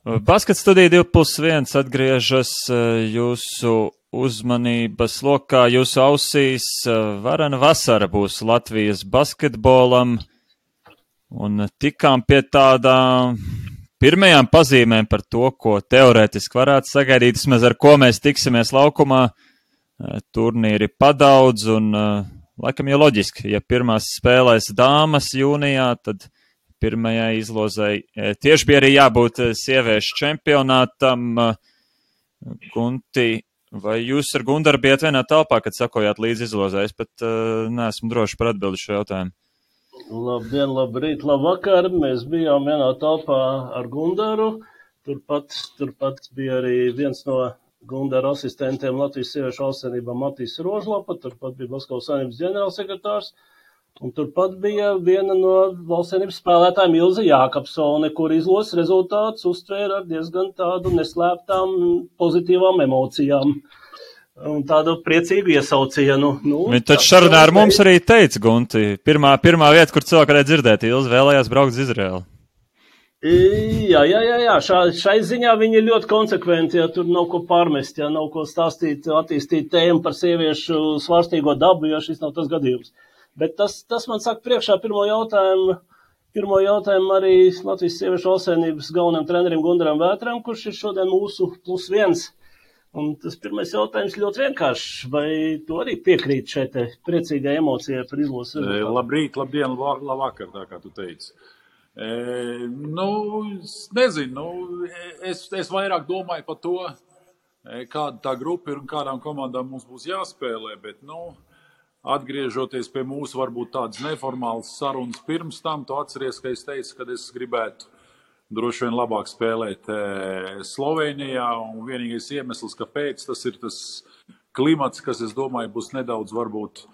Basket studija 2+1 atgriežas jūsu uzmanības lokā, jūsu ausīs. Varena vasara būs Latvijas basketbolam, un tikām pie tādām pirmajām pazīmēm par to, ko teorētiski varētu sagaidīt, vismaz ar ko mēs tiksimies laukumā. Turnīri padaudz, un laikam jau loģiski, ja pirmās spēlēs dāmas jūnijā, tad pirmajai izlozei tieši bija arī jābūt sieviešu čempionātam. Gunti, vai jūs ar Gundaru bijat vienā telpā, kad sakojāt līdz izlozei? Es pat neesmu droši par atbildi šo jautājumu. Labdien, labrīt, labvakar. Mēs bijām vienā telpā ar Gundaru. Turpat bija arī viens no Gundara asistentiem Latvijas sieviešu valstsvienībā Matīs Rožlapa, turpat bija Basketbola savienības ģenerālsekretārs. Un turpat bija viena no valstsvienības spēlētājiem Ilze Jākapsone, kur izlozes rezultātus uztvēra ar diezgan tādu neslēptām pozitīvām emocijām un tādu priecīgu iesaucienu. Viņi taču sarunā ar mums arī teica, Gunti, pirmā vieta, kur cilvēki varēja dzirdēt, Ilze vēlējās braukt uz Izraeli. Jā. Šai ziņā viņi ir ļoti konsekventi, ja tur nav ko pārmest, ja nav ko stāstīt, attīstīt tēmu par sieviešu svārstīgo dabu, ja šis nav tas gadījums. Bet tas man saka priekšā pirmo jautājumu arī Latvijas sieviešu valstsvienības galvenajam trenerim Gundaram Vētram, kurš ir šodien mūsu +1. Un tas pirmais jautājums ļoti vienkāršs. Vai tu arī piekrīt šai te priecīgai emocijai par izlozes rezultātu? Labrīt, labdien, labvakar, tā kā tu teici. Nezinu, es vairāk domāju par to, kāda tā grupa ir un kādām komandām mums būs jāspēlē, bet, atgriežoties pie mūsu varbūt tādas neformālas sarunas pirms tam, tu atceries, ka es teicu, ka es gribētu droši vien labāk spēlēt Slovenijā, un vienīgais iemesls, kāpēc tas ir tas klimats, kas, es domāju, būs nedaudz varbūt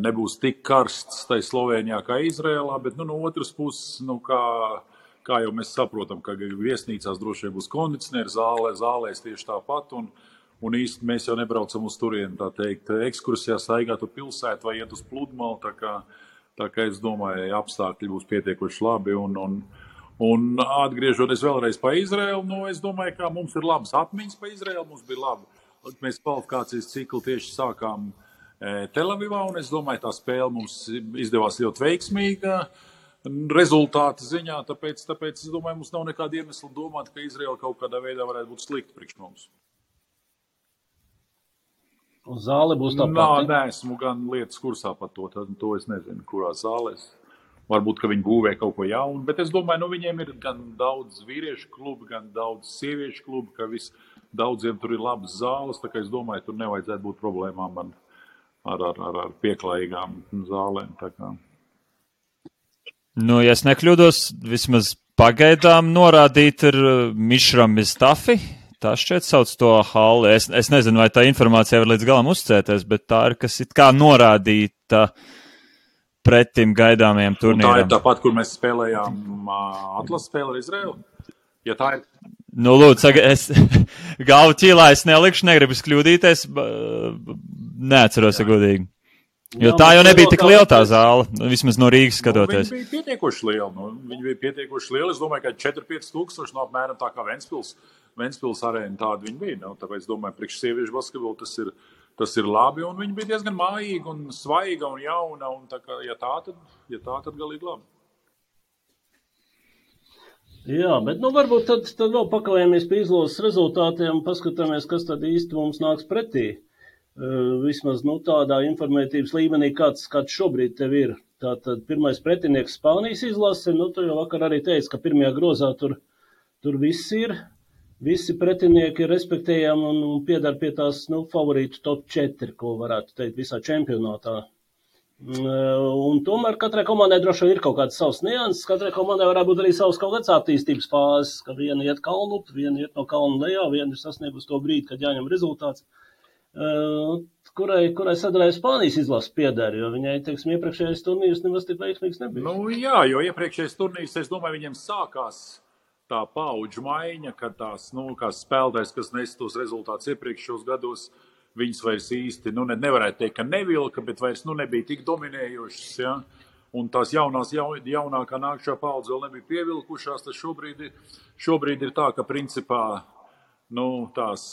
nebūs tik karsts tai Slovenijā kā Izrēlā, bet no otras puses, kā jau mēs saprotam, ka viesnīcās droši vien būs kondicionieri, zālēs tieši tāpat, un īsti mēs jau nebraucam uz turieni, tā teikt, ekskursijā staigāt uz pilsētu vai iet uz pludmali, tā kā es domāju, apstākļi būs pietiekoši labi, un atgriežoties vēlreiz pa Izraelu, es domāju, ka mums ir labas atmiņas pa Izraelu, mums bija labi. Mēs kvalifikācijas ciklu tieši sākām Telavivā, un es domāju, tā spēle mums izdevās ļoti veiksmīga rezultāta ziņā, tāpēc es domāju, mums nav nekāda iemesla domāt, ka Izraela kaut kādā veidā varētu būt slikta priekš mums. Un zāle būs tā pati? Nē, esmu gan lietas kursā par to es nezinu, kurā zālēs. Varbūt, ka viņi būvē kaut ko jaunu, bet es domāju, viņiem ir gan daudz vīriešu klubi, gan daudz sieviešu klubi, ka daudziem tur ir labas zāles, tā kā es domāju, tur nevajadzētu būt problēmām ar pieklājīgām zālēm. Tā kā. Ja es nekļūdos, vismaz pagaidām norādīt ir Mišram Mistafi. Tā šķiet sauc to halli. Es nezinu, vai tā informācija var līdz galam uzcēties, bet tā ir, kas it kā norādīta pretim gaidāmajiem turnīram. Tā ir tāpat, kur mēs spēlējām atlases spēli ar Izraelu? Ja tā ir... Lūdzu, es galvu ķīlā es nelikšu, negribu kļūdīties, neatceros, godīgi. Jo tā jau nebija tik liela tā zāle, vismaz no Rīgas skatoties. Viņa bija pietiekoši liela. Es domāju, ka 4-5 tūkstoši no apmēram tā kā Ventspils arēna tāda viņa bija. Tāpēc es domāju, priekš sieviešu basketbolu tas ir labi, un viņa bija diezgan mājīga un svaiga un jauna, un tā kā, ja tā tad galīgi labi. Jā, bet varbūt tad vēl pakavējamies pie izlozes rezultātiem un paskatāmies, kas tad īsti mums nāks pretī. Vismaz tādā informētības līmenī, kāds šobrīd tev ir. Tātad pirmais pretinieks Spānijas izlase, tu jau vakar arī teici, ka pirmajā grozā tur viss ir. Visi pretinieki ir respektējami un piedar pie tās favorītu top 4, ko varētu teikt visā čempionātā. Un tomēr katrai komandai droši vien ir kaut kāds savs nianses, katrai komandai varētu būt arī savs kaut kāds attīstības fāzes, ka viena iet kalnu, viena iet no kalna lejā, viena ir sasniegusi to brīdi, kad jāņem rezultāts. Kurai sadaļai Spānijas izlases pieder, jo viņai, iepriekšējais turnīrs nemaz tik veiksmīgs nebija. Jā, jo iepriekšējais turnīrs, es domāju, viņiem sākās tā paudžu maiņa, kad tās, kā spēlētājs, kas nes tos rezultātus iepriekšējos gados, viņas vairs īsti, nevarētu teikt, ka nevilka, bet vairs nebija tik dominējošas, ja? un tās jaunākā nākšā paudze vēl nebija pievilkušās, tad šobrīd ir tā, ka principā tās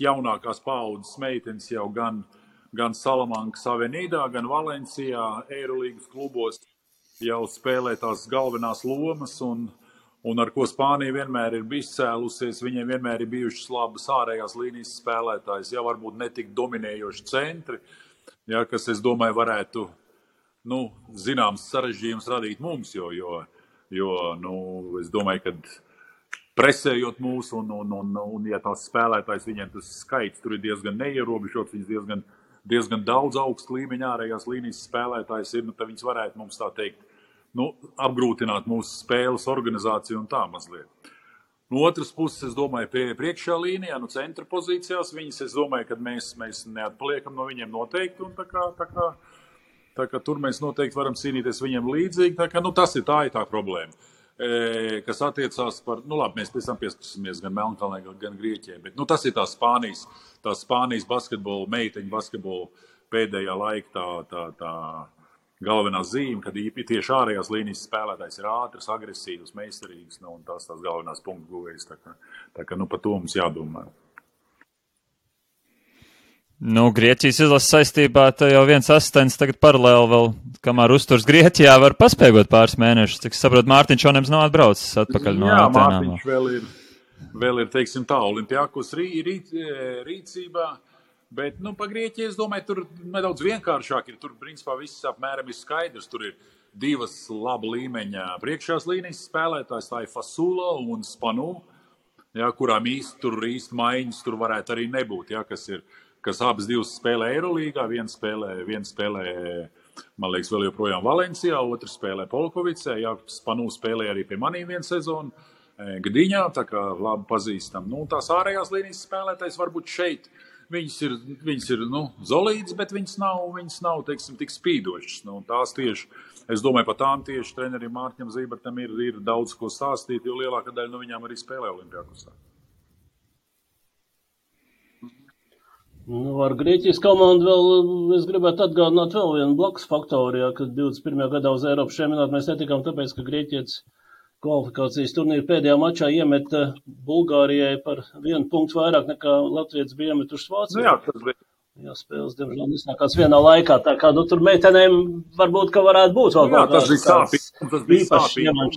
jaunākās paudzes meitenes jau gan Salamankas Avenīdā, gan Valencijā, Eirolīgas klubos jau spēlē tās galvenās lomas, un ar ko Spānija vienmēr ir izcēlusies, viņiem vienmēr ir bijušas labas ārējās līnijas spēlētājs, jau varbūt netik dominējoši centri, ja, kas, es domāju, varētu, zināms sarežģījums radīt mums, jo es domāju, ka presējot mūs, un ja tās spēlētājs, viņiem tas skaits tur ir diezgan neierobežots, viņas diezgan daudz augstu līmeņa ārējās līnijas spēlētājs ir, tad viņas varētu mums tā teikt, apgrūtināt mūsu spēles organizāciju un tā mazliet. No otras puses, es domāju, priekšā līnijā, centra pozīcijās, viņas, es domāju, ka mēs neatpaliekam no viņiem noteikti, un tā kā tur mēs noteikti varam cīnīties viņiem līdzīgi, tā kā, tas ir tā problēma, kas attiecās par, labi, mēs pēc tam pieskarsimies gan Melnkalnē, gan Grieķijai, bet, tas ir tā Spānijas basketbola, meiteņu basketbola pēdējā laika tā galvenā zīme, kad tieši ārējās līnijas spēlētājs ir ātrs, agresīvs, meistarīgs, un tās galvenās punktu guvējs, tā kā, par to mums jādomā. Grieķijas izlases saistībā jau viens asistents tagad paralēli vēl, kamēr uzturs Grieķijā, var paspēgot pāris mēnešus. Cik saprot, Mārtiņš Onems nav atbraucis atpakaļ no Atenām. Jā, Mārtiņš vēl ir, teiksim tā, Olimpiakos rīcībā, bet, pa Grieķiju, es domāju, tur nedaudz vienkāršāk ir. Tur, principā, viss apmēram ir skaidrs. Tur ir divas laba līmeņa priekšās līnijas spēlētājs, tā ir Fasula un Spanu, ja, kurām īsti maiņas tur varētu arī nebūt, ja, kas abas divas spēlē Eirolīgā, viena spēlē, man liekas, vēl joprojām Valencijā, otra spēlē Polkovicē, ja, Spanu spēlē arī pie manī vienu sezonu Gdiņā, tā kā labi pazīstam. Tās ārējās līnijas spēlētājs varbūt šeit, viņas ir zolītas, bet viņas nav, teiksim, tik spīdošas. Tās tieši, es domāju, par tām tieši trenerim Mārtiņam Zībertam ir daudz ko stāstīt, jo lielākā daļa no viņām arī spēlē Olimpiakosā. Ar Grieķijas komandu vēl es gribētu atgādināt vēl vienu blakus faktoru, ja, kad 21. gadā uz Eiropas čempionātu mēs netikām tāpēc, ka Grieķijas kvalifikācijas turnīra pēdējā mačā iemeta Bulgārijai par 1 punktu vairāk nekā Latvijas bija iemetušas Vācijā. Jā, spēles, diemžēl, nesākās vienā laikā, tā kā, tur meitenēm varbūt, ka varētu būt vēl kaut kāds īpašs iemaņš.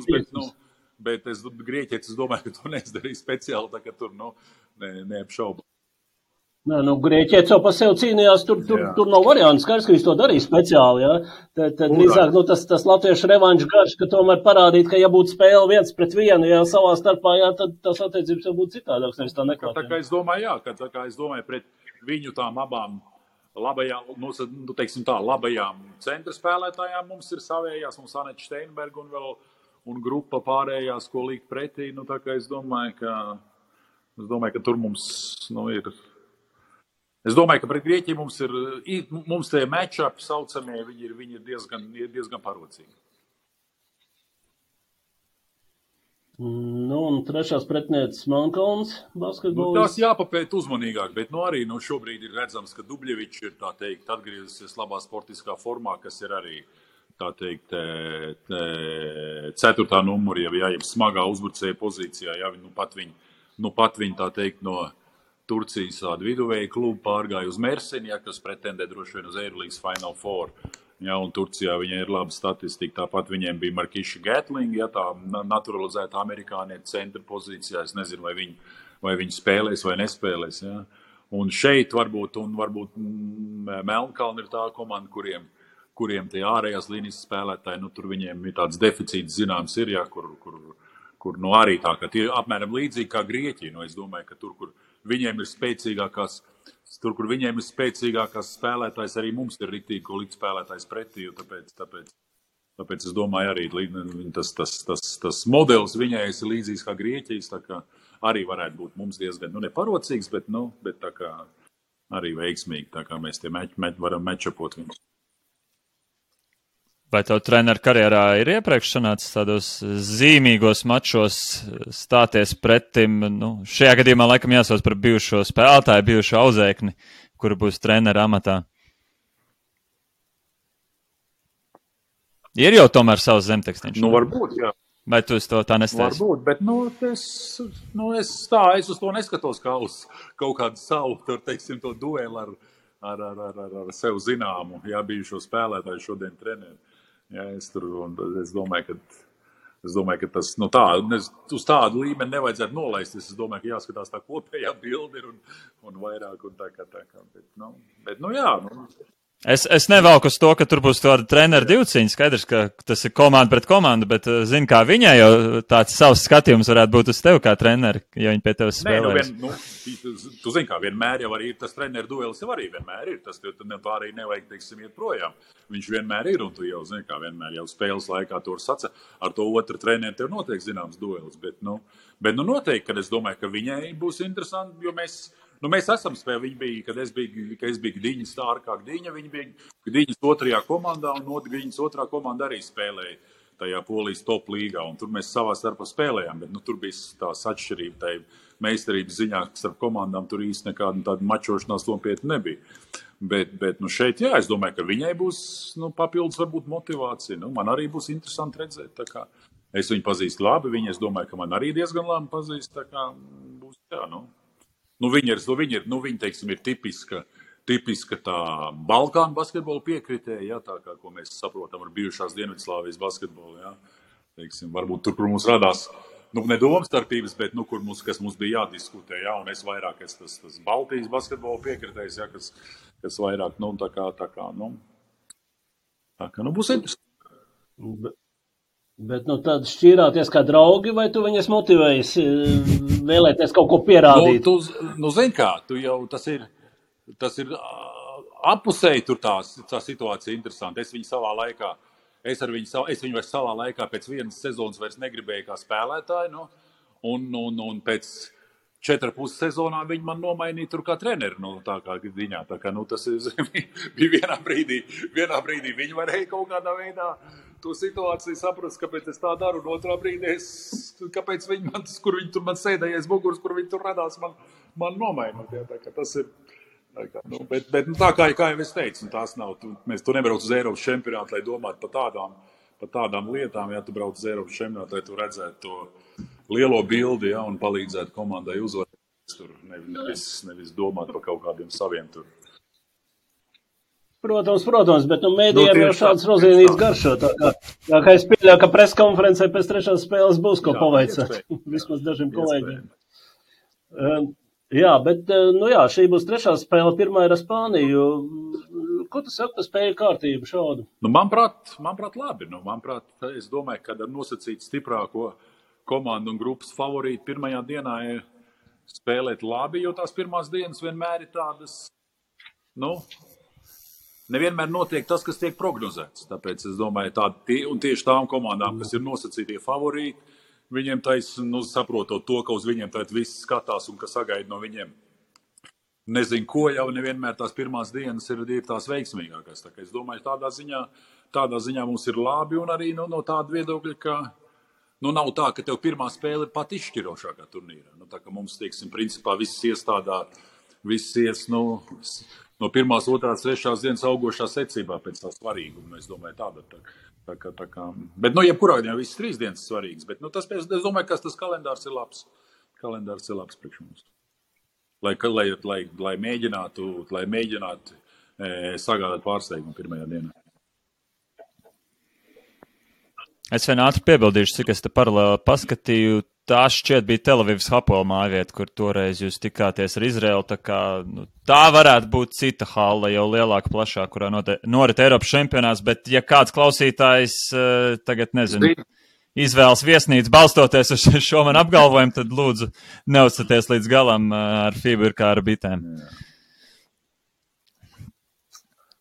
Bet Grieķietis, es domāju, ka to neizdarīja speciāli, tā ka tur, neapšauba. Grieķietis jau pa sev cīnījās, tur nav variantu, skaidrs, ka viņš to darīja speciāli, ja. Tad drīzāk, tas latviešu revanšu garš, ka tomēr parādīt, ka ja būtu spēle 1-1, ja savā starpā, jā, tad tās attiecības jau būtu citādāks, nevis tā neklāt. Tā kā es domāju, pret viņu tām abām labajām, teiksim tā, labajām centra spēlētājām mums ir savējās, mums Aneta Steinberga un grupa pārējās, ko likt pretī, tā kā es domāju, ka tur mums, ir. Es domāju, ka pret Grieķiju mums tie match-upi saucamie, viņi ir diezgan parocīgi. Un trešās pretnieces Melnkalnes basketbolis. Tās jāpapēt uzmanīgāk, bet arī šobrīd ir redzams, ka Dubļevičs ir, tā teikt, atgriezusies labā sportiskā formā, kas ir arī, tā teikt, 4. numuri, ja smagā uzbrucēja pozīcijā, ja pat viņi, tā teikt, no Turcijas viduvēja klubu pārgāja uz Mersini, ja, kas pretendē droši vien uz Eirolīgas Final Four. Ja, un Turcijā viņai ir laba statistika. Tāpat viņiem bija Markiša Gatling, ja, tā naturalizēta amerikānieta centra pozīcijā. Es nezinu, vai viņi spēlēs vai nespēlēs. Ja. Un šeit varbūt Melnkalna ir tā komanda, kuriem tie ārējās līnijas spēlētāji, tur viņiem ir tāds deficīts zināms ir, ja, kur arī tā, ka tie apmēram līdzīgi kā Grieķija. Es domāju, ka tur, kur viņiem ir spēcīgākās spēlētājs, arī mums ir riktīgi, ko likt spēlētājs pretī, tāpēc es domāju arī tas modelis viņai ir līdzīgs kā Grieķijas, tā kā arī varētu būt mums diezgan, neparocīgs, bet tā kā arī veiksmīgi, tā kā mēs tie varam matchupot viņus. Vai tev treneru karjerā ir iepriekš sanācis tādos zīmīgos mačos stāties pretim? Šajā gadījumā laikam jāsauc par bijušo spēlētāju, bijušo auzēkni, kura būs trenera amatā. Ir jau tomēr savs zemtekstiņš. Nu, varbūt, jā. Vai tu uz to tā nestāsi? Varbūt, bet es uz to neskatos kā uz kaut kādu savu, teiksim, to dueli ar sev zināmu, jā, bijušo spēlētāju šodien treneri. Jā, es domāju, ka tas, uz tādu līmeni nevajadzētu nolaist. Es domāju, ka jāskatās tā kopējā bilde un vairāk un tā kā. Bet, jā. Es nevelku uz to, ka tur būs tāda treneru divciņa. Skaidrs, ka tas ir komanda pret komandu, bet zinu, kā viņai jau tāds savs skatījums varētu būt uz tevi kā treneri, ja viņi pie tevis spēlēs. Tu zini, kā vienmēr jau arī ir tas treneru duelis, jau arī vienmēr ir. Tas tā arī nevajag, teiksim, iet projām. Viņš vienmēr ir, un tu jau zini, kā vienmēr jau spēles laikā tur saca ar to otru treneru, tev notiek zināms duelis. Bet noteikti, kad es domāju, ka viņai būs interesanti, jo mēs esam spēlējuši. Viņa bija, kad es biju Gdiņas stārkā Gdiņa, viņa bija Gdiņas otrajā komandā, un Gdiņas otrā komanda arī spēlēja tajā Polijas top līgā, un tur mēs savā starpā spēlējām, bet tur bija tās atšķirība, tai meistarības ziņā starp komandām tur īsti nekāda tāda mačošanās nopietni nebija. Bet šeit, jā, es domāju, ka viņai būs papildus varbūt motivācija. Man arī būs interesanti redzēt, tā kā es viņu pazīstu labi, es domāju, ka man arī diezgan labi pazīst, tā kā būs, jā, Viņa, teiksim, ir tipiska tā Balkānu basketbola piekritēja, jā, tā kā, ko mēs saprotam ar bijušās Dienvidslāvijas basketbolu, jā. Teiksim, varbūt tur, kur mums radās, ne domstarpības, bet, kas mums bija jādiskutē, jā, un es vairāk tas Baltijas basketbola piekritējs, jā, kas vairāk, būs interesanti. Bet tad šķīrāties kā draugi, vai tu viņas motivējis vēlēties kaut ko pierādīt? Zini kā, tas ir appusēji tur tā situācija interesanti. Es viņu vairs savā laikā pēc vienas sezonas vairs negribēju kā spēlētāju, un pēc 4,5 sezonā viņi man nomainīja tur kā treneri, tā kā Gdiņā. Tā kā, tas bija vienā brīdī viņi varēja kaut kādā veidā to situāciju saprast, kāpēc es tā daru, un otrā brīdī kāpēc viņi man, kur viņi tur man sēdējies muguras, kur viņi tur radās, man nomainot. Jā, tā kā tas ir, bet tā kā jau es teicu, tās nav, tu nebrauc uz Eiropas čempionātu, lai domātu par tādām lietām, ja tu brauc uz Eiropas čempionātu, lai tu redzētu to lielo bildi, ja, un palīdzētu komandai uzvarēt tur, nevis domāt par kaut kādiem saviem tur. Protams, bet mēdījiem jau šāds rozīnīts garšo. Tā kā es pieļauju, ka preskonferencē pēc trešās spēles būs ko pavaicāt. Vismaz dažiem kolēģiem. Jā, bet šī būs trešā spēle, pirmā ir ar Spāniju. Ko tu saki par spēļu kārtību šādu? Manuprāt, labi. Manuprāt, es domāju, ka ar nosacīt stiprāko komandu un grupas favorītu pirmajā dienā ir spēlēt labi, jo tās pirmās dienas vienmēr ir tādas, nevienmēr notiek tas, kas tiek prognozēts. Tāpēc es domāju, un tieši tām komandām, kas ir nosacītie favorīti, viņiem saprotot to, ka uz viņiem tagad viss skatās un ka sagaida no viņiem nezinu ko, jau nevienmēr tās pirmās dienas ir tās veiksmīgākās. Tā kā es domāju, tādā ziņā mums ir labi un arī no tāda viedokļa, ka nav tā, ka tev pirmā spēle ir pat izšķirošākā turnīrā. Tā kā mums, teiksim, principā viss ies no pirmās, otrās, trešās dienas augošā secībā pēc tā svarīguma. Es domāju, tā kā. Bet, jebkurā gadījumā visas 3 dienas svarīgas. Bet, es domāju, ka tas kalendārs ir labs. Kalendārs ir labs priekš mums. Lai mēģinātu sagādāt pārsteigumu pirmajā dienā. Es vien ātri piebildīšu, cik es te paralēli paskatīju. Tā šķiet bija Telavivas Hapoel mājvieta, kur toreiz jūs tikāties ar Izraelu. Tā varētu būt cita halla, jau lielāka, plašāka, kurā norit Eiropas čempionāts. Bet, ja kāds klausītājs tagad, izvēlas viesnīcu balstoties uz šo man apgalvojumu, tad lūdzu neuzstaties līdz galam ar FIBA kā ar bitēm.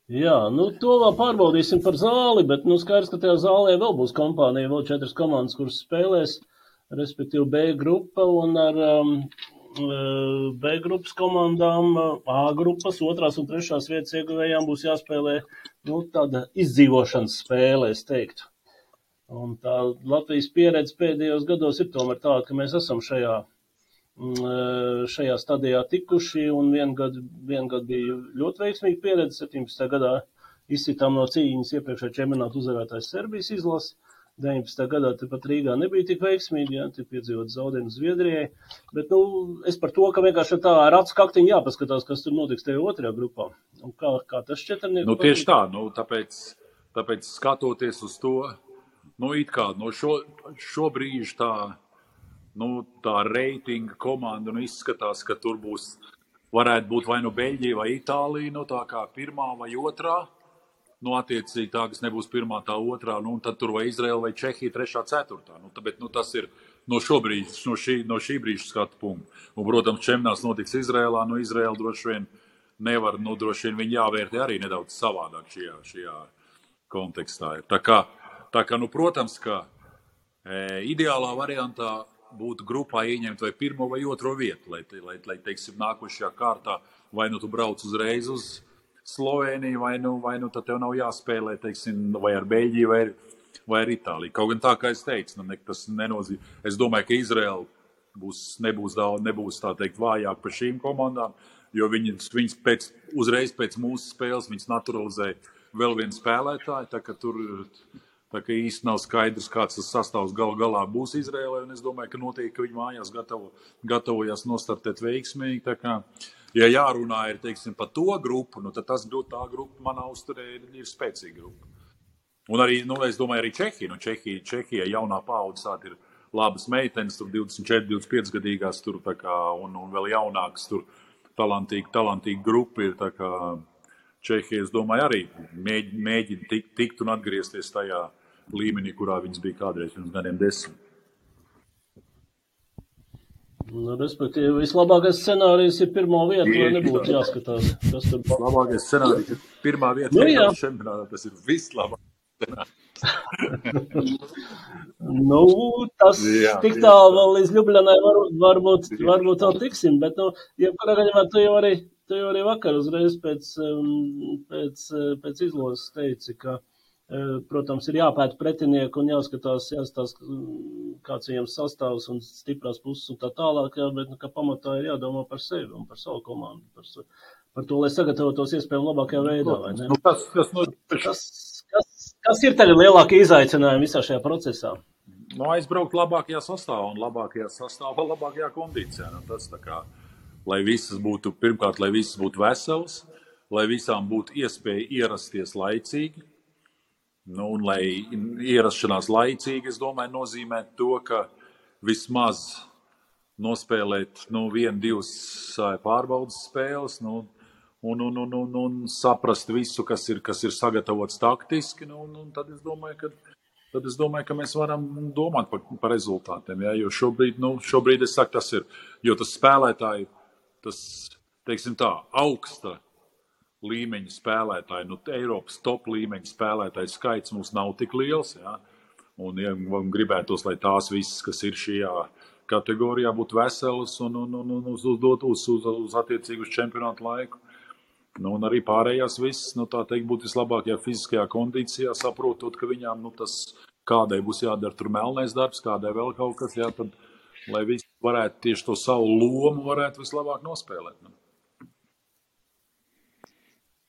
Jā, to vēl pārbaudīsim par zāli, bet skaidrs, ka tajā zālē vēl būs kompānija, vēl 4 komandas, kuras spēlēs, respektīvi B grupa, un ar B grupas komandām, A grupas, 2. un 3. vietas ieguvējām būs jāspēlē tāda izdzīvošanas spēle, es teiktu. Un tā Latvijas pieredze pēdējos gados ir tomēr tāda, ka mēs esam šajā stadijā tikuši, un vien gadu bija ļoti veiksmīga pieredze, 17. gadā izsitām no cīņas iepriekšējā čempionāta uzvarētājs Serbijas izlasi. 19. gadā tepat Rīgā nebija tik veiksmīgi, ja, tie piedzīvot zaudējumu Zviedrijai. Bet, es par to, ka vienkārši tā ar acu kaktiņu jāpaskatās, kas tur notiks tajā otrajā grupā. Un kā tas šķetrnieks? Tieši tā, tāpēc skatoties uz to, it kā, šobrīd tā, tā reitinga komanda, izskatās, ka tur varētu būt vai Beļģija vai Itālija, tā kā pirmā vai otrā. Attiecīgi tā, kas nebūs pirmā, tā otrā, un tad tur vai Izraela vai Čehija, trešā, ceturtā. Bet tas ir no šī brīža skatu punktu. Un, protams, čempionāts notiks Izraēlā, Izraela droši vien nevar, droši vien viņi jāvērtē arī nedaudz savādāk šajā kontekstā. Tā kā, protams, ka ideālā variantā būtu grupā ieņemt vai pirmo vai otro vietu, lai teiksim, nākošajā kārtā vai tu brauc uzreiz uz Slovēniju, vai tad tev nav jāspēlē, teiksim, vai ar Beļģiju, vai ar Itāliju. Kaut gan tā, kā es teicu, tas nenozīmē. Es domāju, ka Izraela nebūs tā teikt vājāk par šīm komandām, jo viņas uzreiz pēc mūsu spēles viņas naturalizē vēl vienu spēlētāju, tā ka īsti nav skaidrs, kāds tas sastāvs galā būs Izraēlai, un es domāju, ka noteikti, ka viņi mājās gatavojas nostartēt veiksmīgi, tā kā ja jārunā ir, teiksim, par to grupu, tad tā grupa manā uzturē ir spēcīga grupa. Un arī, es domāju, arī Čehija. Čehija jaunā paudze ir labas meitenes, tur 24, 25 gadīgās, tur tā kā, un vēl jaunākas, tur talantīgi grupa ir, tā kā Čehija, es domāju, arī mēģina tikt un atgriezties tajā līmenī, kurā viņas bija kādreiz pirms gadiem 10. Respektīvi, vislabākais scenārijs ir pirmā vieta, lai nebūtu jāskatās, kas tur būs. Labākais scenārijs ir pirmā vieta, tas ir vislabākais scenārijs. Tas tik tālu vēl līdz Ljubljanai varbūt vēl tiksim, bet, jebkurā gadījumā tu jau arī vakar uzreiz pēc izlozes teici, ka protams, ir jāpēta pretinieku un jāskatās, kāds viņam sastāvs un stiprās puses un tā tālāk, bet ka pamatā ir jādomā par sevi un par savu komandu, par to, lai sagatavotos iespējami labākajā veidā, vai ne? Kas ir tagad lielākie izaicinājumi visā šajā procesā? Aizbraukt labākajā sastāvā un labākajā kondīcijā. Tas tā kā, lai visas būtu veselas, lai visām būtu iespēja ierasties laicīgi. Un lai ierašanās laicīgi, es domāju, nozīmē to, ka vismaz nospēlēt 1-2 pārbaudas spēles un saprast visu, kas ir sagatavots taktiski. Tad es domāju, ka mēs varam domāt par rezultātiem. Ja? Jo šobrīd es saku, tas ir, jo tas spēlētāji, teiksim tā, augsta līmeņa spēlētāji, Eiropas top līmeņa spēlētāju skaits mums nav tik liels, ja? Un gribētos, lai tās visas, kas ir šajā kategorijā, būtu veselas un uz attiecīgu čempionātu laiku. Un arī pārējās visas, tā teikt, būtu vislabākajā fiziskajā kondīcijā, saprotot, ka viņām, kādai būs jādara tur melnais darbs, kādai vēl kaut kas, ja, tad, lai visi varētu tieši to savu lomu varētu vislabāk nospēlēt.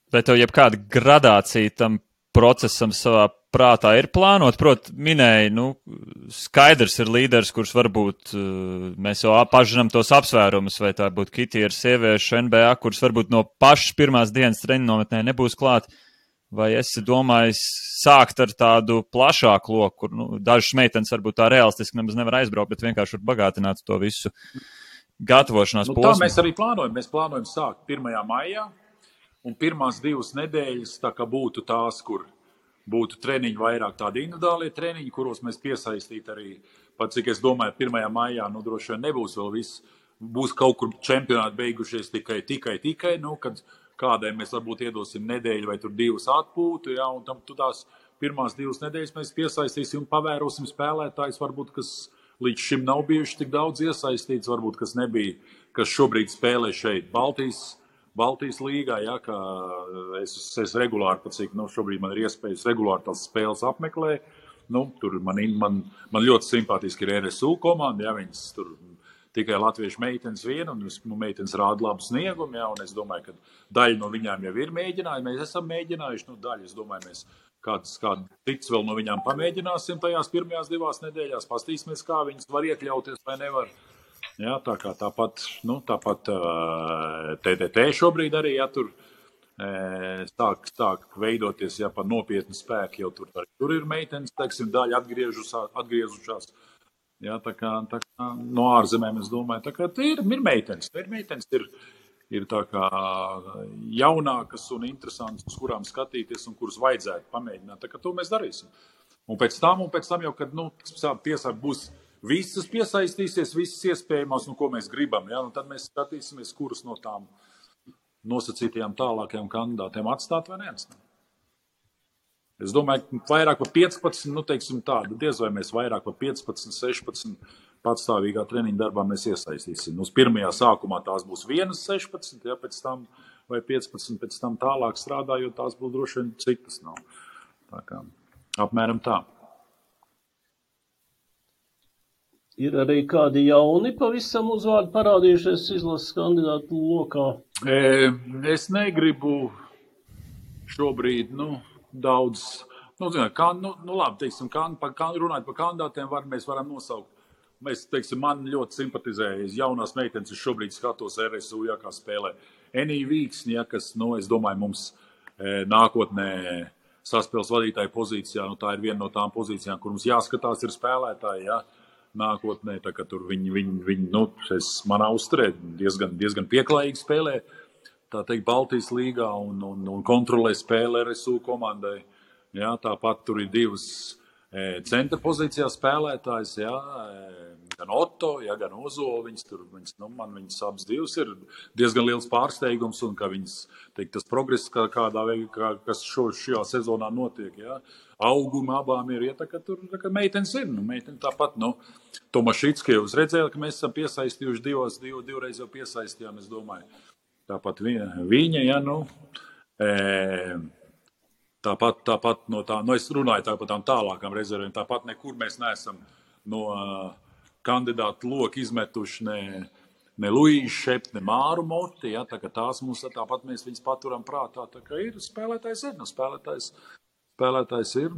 Vai tev jebkāda gradācija tam procesam savā prātā ir plānot? Minēja, skaidrs ir līderis, kurš varbūt mēs jau pažinām tos apsvērumus, vai tā būtu Kitija ar sieviešu NBA, kurš varbūt no pašas pirmās dienas treniņu nometnē nebūs klāt, vai esi domājis sākt ar tādu plašāku loku, kur dažas meitenes varbūt tā realistiski nemaz nevar aizbraukt, bet vienkārši var bagātināt to visu gatavošanās posmu? Tā mēs arī plānojam. Mēs plānojam sākt 1. maijā. Un pirmās 2 nedēļas tā kā būtu tās, kur būtu treniņi vairāk tādi individuālie treniņi, kuros mēs piesaistītu arī, pat cik es domāju, 1. maijā, droši vien nebūs vēl viss, būs kaut kur čempionāti beigušies tikai, kad kādai mēs varbūt iedosim nedēļu vai tur 2 atpūtu, ja, un tam tās pirmās 2 nedēļas mēs piesaistīsim un pavērosim spēlētājus, varbūt, kas līdz šim nav bijuši tik daudz iesaistīts, varbūt, kas nebija, kas šobrīd spēlē šeit Baltijas līgā, ja, ka es regulāri, pat cik šobrīd man ir iespējas regulāri tās spēles apmeklēt. Tur man ļoti simpātiski ir RSU komanda, ja, viņas tur tikai latviešu meitenes viena, un meitenes rāda labu sniegumu, jā, un es domāju, ka daļa no viņām jau ir mēģinājuši, mēs esam mēģinājuši, daļa, es domāju, mēs kāds cits vēl no viņām pamēģināsim tajās pirmajās 2 nedēļās, pastīsimies, kā viņas var iekļauties vai nevar. Jā, tā kā tāpat TTT šobrīd arī, ja tur sāk veidoties, ja par nopietnu spēku, jau tur ir meitenes, teiksim, daļa atgriezušās. Jā, tā kā no ārzemēm, es domāju, tā kā ir meitenes, ir tā kā jaunākas un interesantas, uz kurām skatīties un kuras vajadzētu pamēģināt. Tā kā to mēs darīsim. Un pēc tam jau, kad, būs visas piesaistīsies, visas iespējamās, ko mēs gribam, ja? Tad mēs skatīsimies, kuras no tām nosacītajām tālākajām kandidātiem atstāt vai neatstāt. Es domāju, ka vairāk par 15, teiksim tādu, diez vai mēs vairāk par 15, 16 patstāvīgā treniņa darbā mēs iesaistīsim. Uz pirmajā sākumā tās būs 16, ja pēc tam vai 15, pēc tam tālāk strādājot, tās būs droši vien citas nav. Tā kā apmēram tā. Ir arī kādi jauni pavisam uzvārdi parādījušies izlases kandidātu lokā? Es negribu šobrīd, daudz, labi, teiksim, runājot par kandidātiem, mēs varam nosaukt. Mēs, teiksim, man ļoti simpatizējas jaunās meitenes, es šobrīd skatos RSU, ja, kā spēlē. Enī Vīksni, ja, kas, es domāju, mums nākotnē saspēles vadītāja pozīcijā, tā ir viena no tām pozīcijām, kur mums jāskatās ir spēlētāji, ja. Nākotnē, tā kā tur viņi manā uzturē diezgan pieklājīgi spēlē, tā teikt, Baltijas līgā un kontrolē spēli RSU komandai. Jā, tāpat tur ir 2 centra pozīcijā spēlētājs, jā, gan Otto, jā, gan Ozo, man viņas abas 2 ir diezgan liels pārsteigums un ka viņas, teikt, tas progress kādā veidā, kas šajā sezonā notiek, jā. Auguma abām ir, ja tā kā meitenes ir, meitenes tāpat, Tomašitski jūs redzējāt, ka mēs esam piesaistījuši divreiz jau piesaistījām, es domāju. Tāpat viņa, ja, tāpat no tā, es runāju tāpat tām tālākām rezervēm, tāpat nekur mēs neesam no kandidātu loku izmetuši ne Luīšu Šept, ne Māru Moti, ja, tā kā tās mums, tāpat mēs viņas paturam prātā, tā kā ir, spēlētājs ir.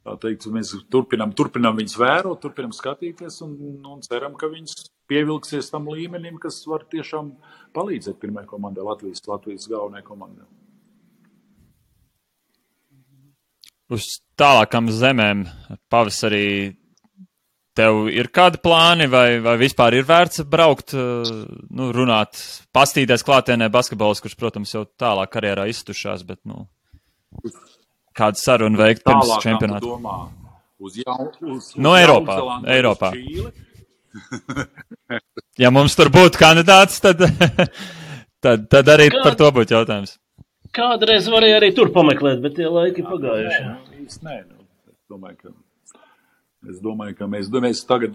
Tā teikt, mēs turpinam viņus vērot, turpinam skatīties un ceram, ka viņas pievilksies tam līmenim, kas var tiešām palīdzēt pirmajai komandai, Latvijas galvenajai komandai. Uz tālākām zemēm pavasarī tev ir kādi plāni vai vispār ir vērts braukt, runāt, pastīties klātienē basketbols, kurš, protams, jau tālāk karjerā iztušās, bet, kādu sarunu veikt pirms čempionāta? Eiropā. Ja mums tur būtu kandidāts, tad arī par to būtu jautājums. Kādreiz varēja arī tur pameklēt, bet tie laiki pagājuši. Es domāju, ka mēs tagad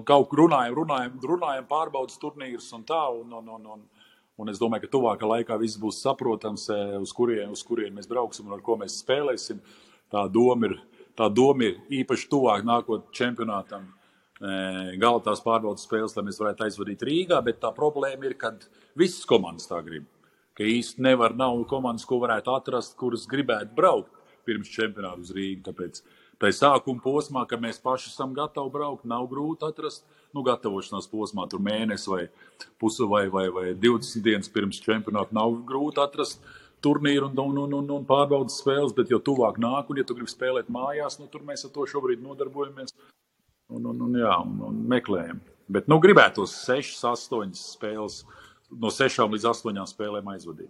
kaut kur runājam pārbaudas turnīrus un tā, un es domāju, ka tuvākā laikā viss būs saprotams, uz kurien mēs brauksim un ar ko mēs spēlēsim. Tā doma ir īpaši tuvāk nākot čempionātam gala tās pārbaudas spēles, lai mēs varētu aizvadīt Rīgā, bet tā problēma ir, kad visas komandas tā grib. Ka īsti nav komandas, ko varētu atrast, kuras gribētu braukt pirms čempionāta uz Rīgu. Tāpēc tai sākuma posmā, kad mēs paši esam gatavi braukt, nav grūti atrast, gatavošanās posmā, tur mēnesi vai pusi vai 20 dienas pirms čempionāta nav grūti atrast turnīru un pārbaudas spēles, bet jo tuvāk nāk, un ja tu gribi spēlēt mājās, tur mēs ar to šobrīd nodarbojamies un meklējam. Bet gribētos 6, 8 spēles, no 6 līdz 8 spēlēm aizvadīt.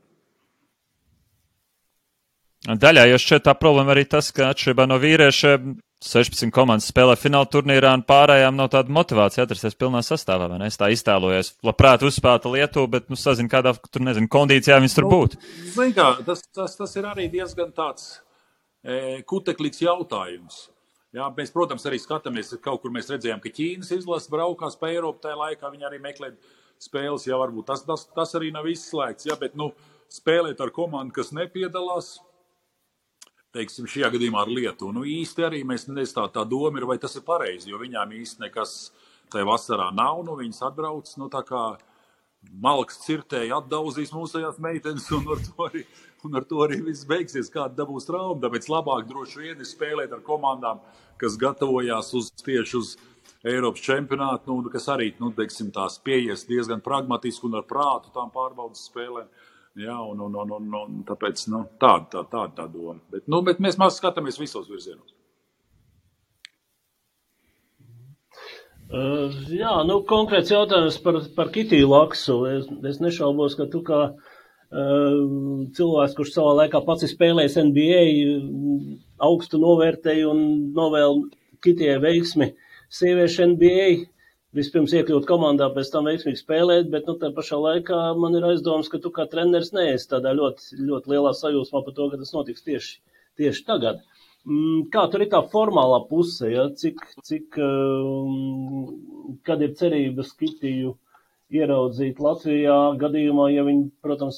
Daļā jau šķiet tā problēma arī tas, ka atšķirībā no vīriešiem 16 komandas spēlē fināla turnīrā un pārējām nav tāda motivācija atrasties pilnā sastāvā, vai ne? Es tā iztēlojos. Labprāt uzspēlēta Lietuva, bet sazinu, kādā kondīcijā viņas tur būtu. Zin kā, tas ir arī diezgan tāds kuteklīgs jautājums. Jā, mēs, protams, arī skatāmies, kaut kur mēs redzējām, ka Ķīnas izlase braukās pa Eiropu, tajā laikā viņi arī meklē spēles, jā, varbūt tas arī nav izslēgts, jā, bet, spēlēt ar komandu, kas nepiedalās, teiksim, šajā gadījumā ar Lietuvu. Īsti arī mēs tā doma ir, vai tas ir pareizi, jo viņām īsti tai vasarā nav, nu viņas atbrauc, nu tā kā malks cirtēji atdauzīs mūsējās meitenes, un ar to arī viss beigsies, kāda dabūs trauma. Tāpēc labāk droši vien ir spēlēt ar komandām, kas gatavojās tieši uz Eiropas čempionātu, nu, kas arī, nu, teiksim, tās pieies diezgan pragmatiski un ar prātu tām pārbaudas spēlēm. Jā, un tāpēc, nu, tāda doma. Bet mēs skatāmies visos virzienos. Jā, nu, konkrēts jautājums par Kitiju Laksu. Es nešaubos, ka tu kā cilvēks, kurš savā laikā pats ir spēlējis NBA, augstu novērtēju un novēl Kitijai veiksmi sieviešu NBA. Vispirms iekļūt komandā, pēc tam veiksmīgi spēlēt, bet nu, tā pašā laikā man ir aizdomas, ka tu kā treneris neesi tādā ļoti, ļoti lielā sajūsmā par to, ka tas notiks tieši tagad. Kā tur ir tā formālā puse, ja? Kad ir cerības Kitiju ieraudzīt Latvijā gadījumā, ja viņi, protams,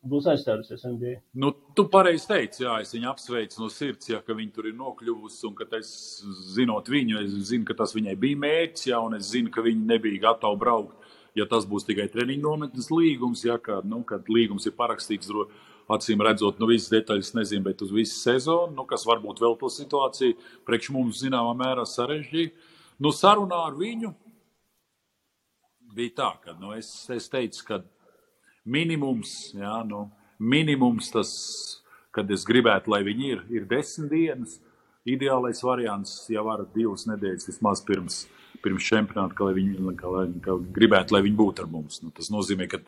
būs aizstājusies NBA? Nu, tu pareizi teici, jā, es viņu apsveicu no sirds, jā, ka viņi tur ir nokļuvusi, un ka es, zinot viņu, es zinu, ka tas viņai bija mērķis, jā, un es zinu, ka viņi nebija gatavi braukt, ja tas būs tikai treniņu nometnes līgums, jā, kad līgums ir parakstīts, acīm redzot, nu visas detaļas nezinu, bet uz visu sezonu, kas varbūt vēl to situāciju priekš mums zināmā mērā sarežģīja. Nu, sarunā ar viņu bija tā, ka es teicu, ka minimums, jā, minimums tas, kad es gribētu, lai viņi ir 10 dienas, ideālais variants, ja var 2 nedēļas vismaz pirms čempionāta, ka gribētu, lai viņi būtu ar mums. Nu, tas nozīmē, ka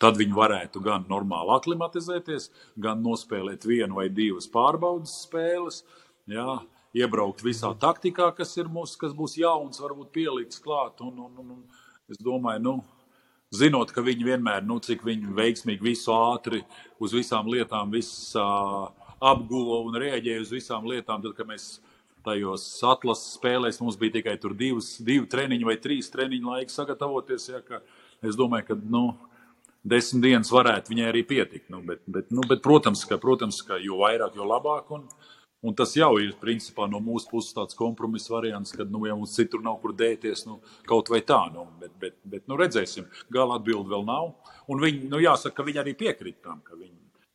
tad viņi varētu gan normāli aklimatizēties, gan nospēlēt 1 vai 2 pārbaudas spēles, jā, iebraukt visā taktikā, kas būs jauns, varbūt pielikts klāt. Un es domāju, zinot, ka viņi vienmēr, cik viņi veiksmīgi visu ātri uz visām lietām, apguva un rēģēja uz visām lietām, tad, kad mēs tajos atlases spēlēs mums bija tikai tur 2 treniņi vai 3 treniņu laika sagatavoties, ja, ka es domāju, ka 10 dienas varētu viņai arī pietikt. Bet protams, ka jo vairāk, jo labāk, un tas jau ir principā no mūsu puses tāds kompromiss variants, kad, ja mums citur nav kur dēties, kaut vai tā, bet redzēsim, gala atbildi vēl nav, un viņi, jāsaka, ka viņi arī piekrīt tam,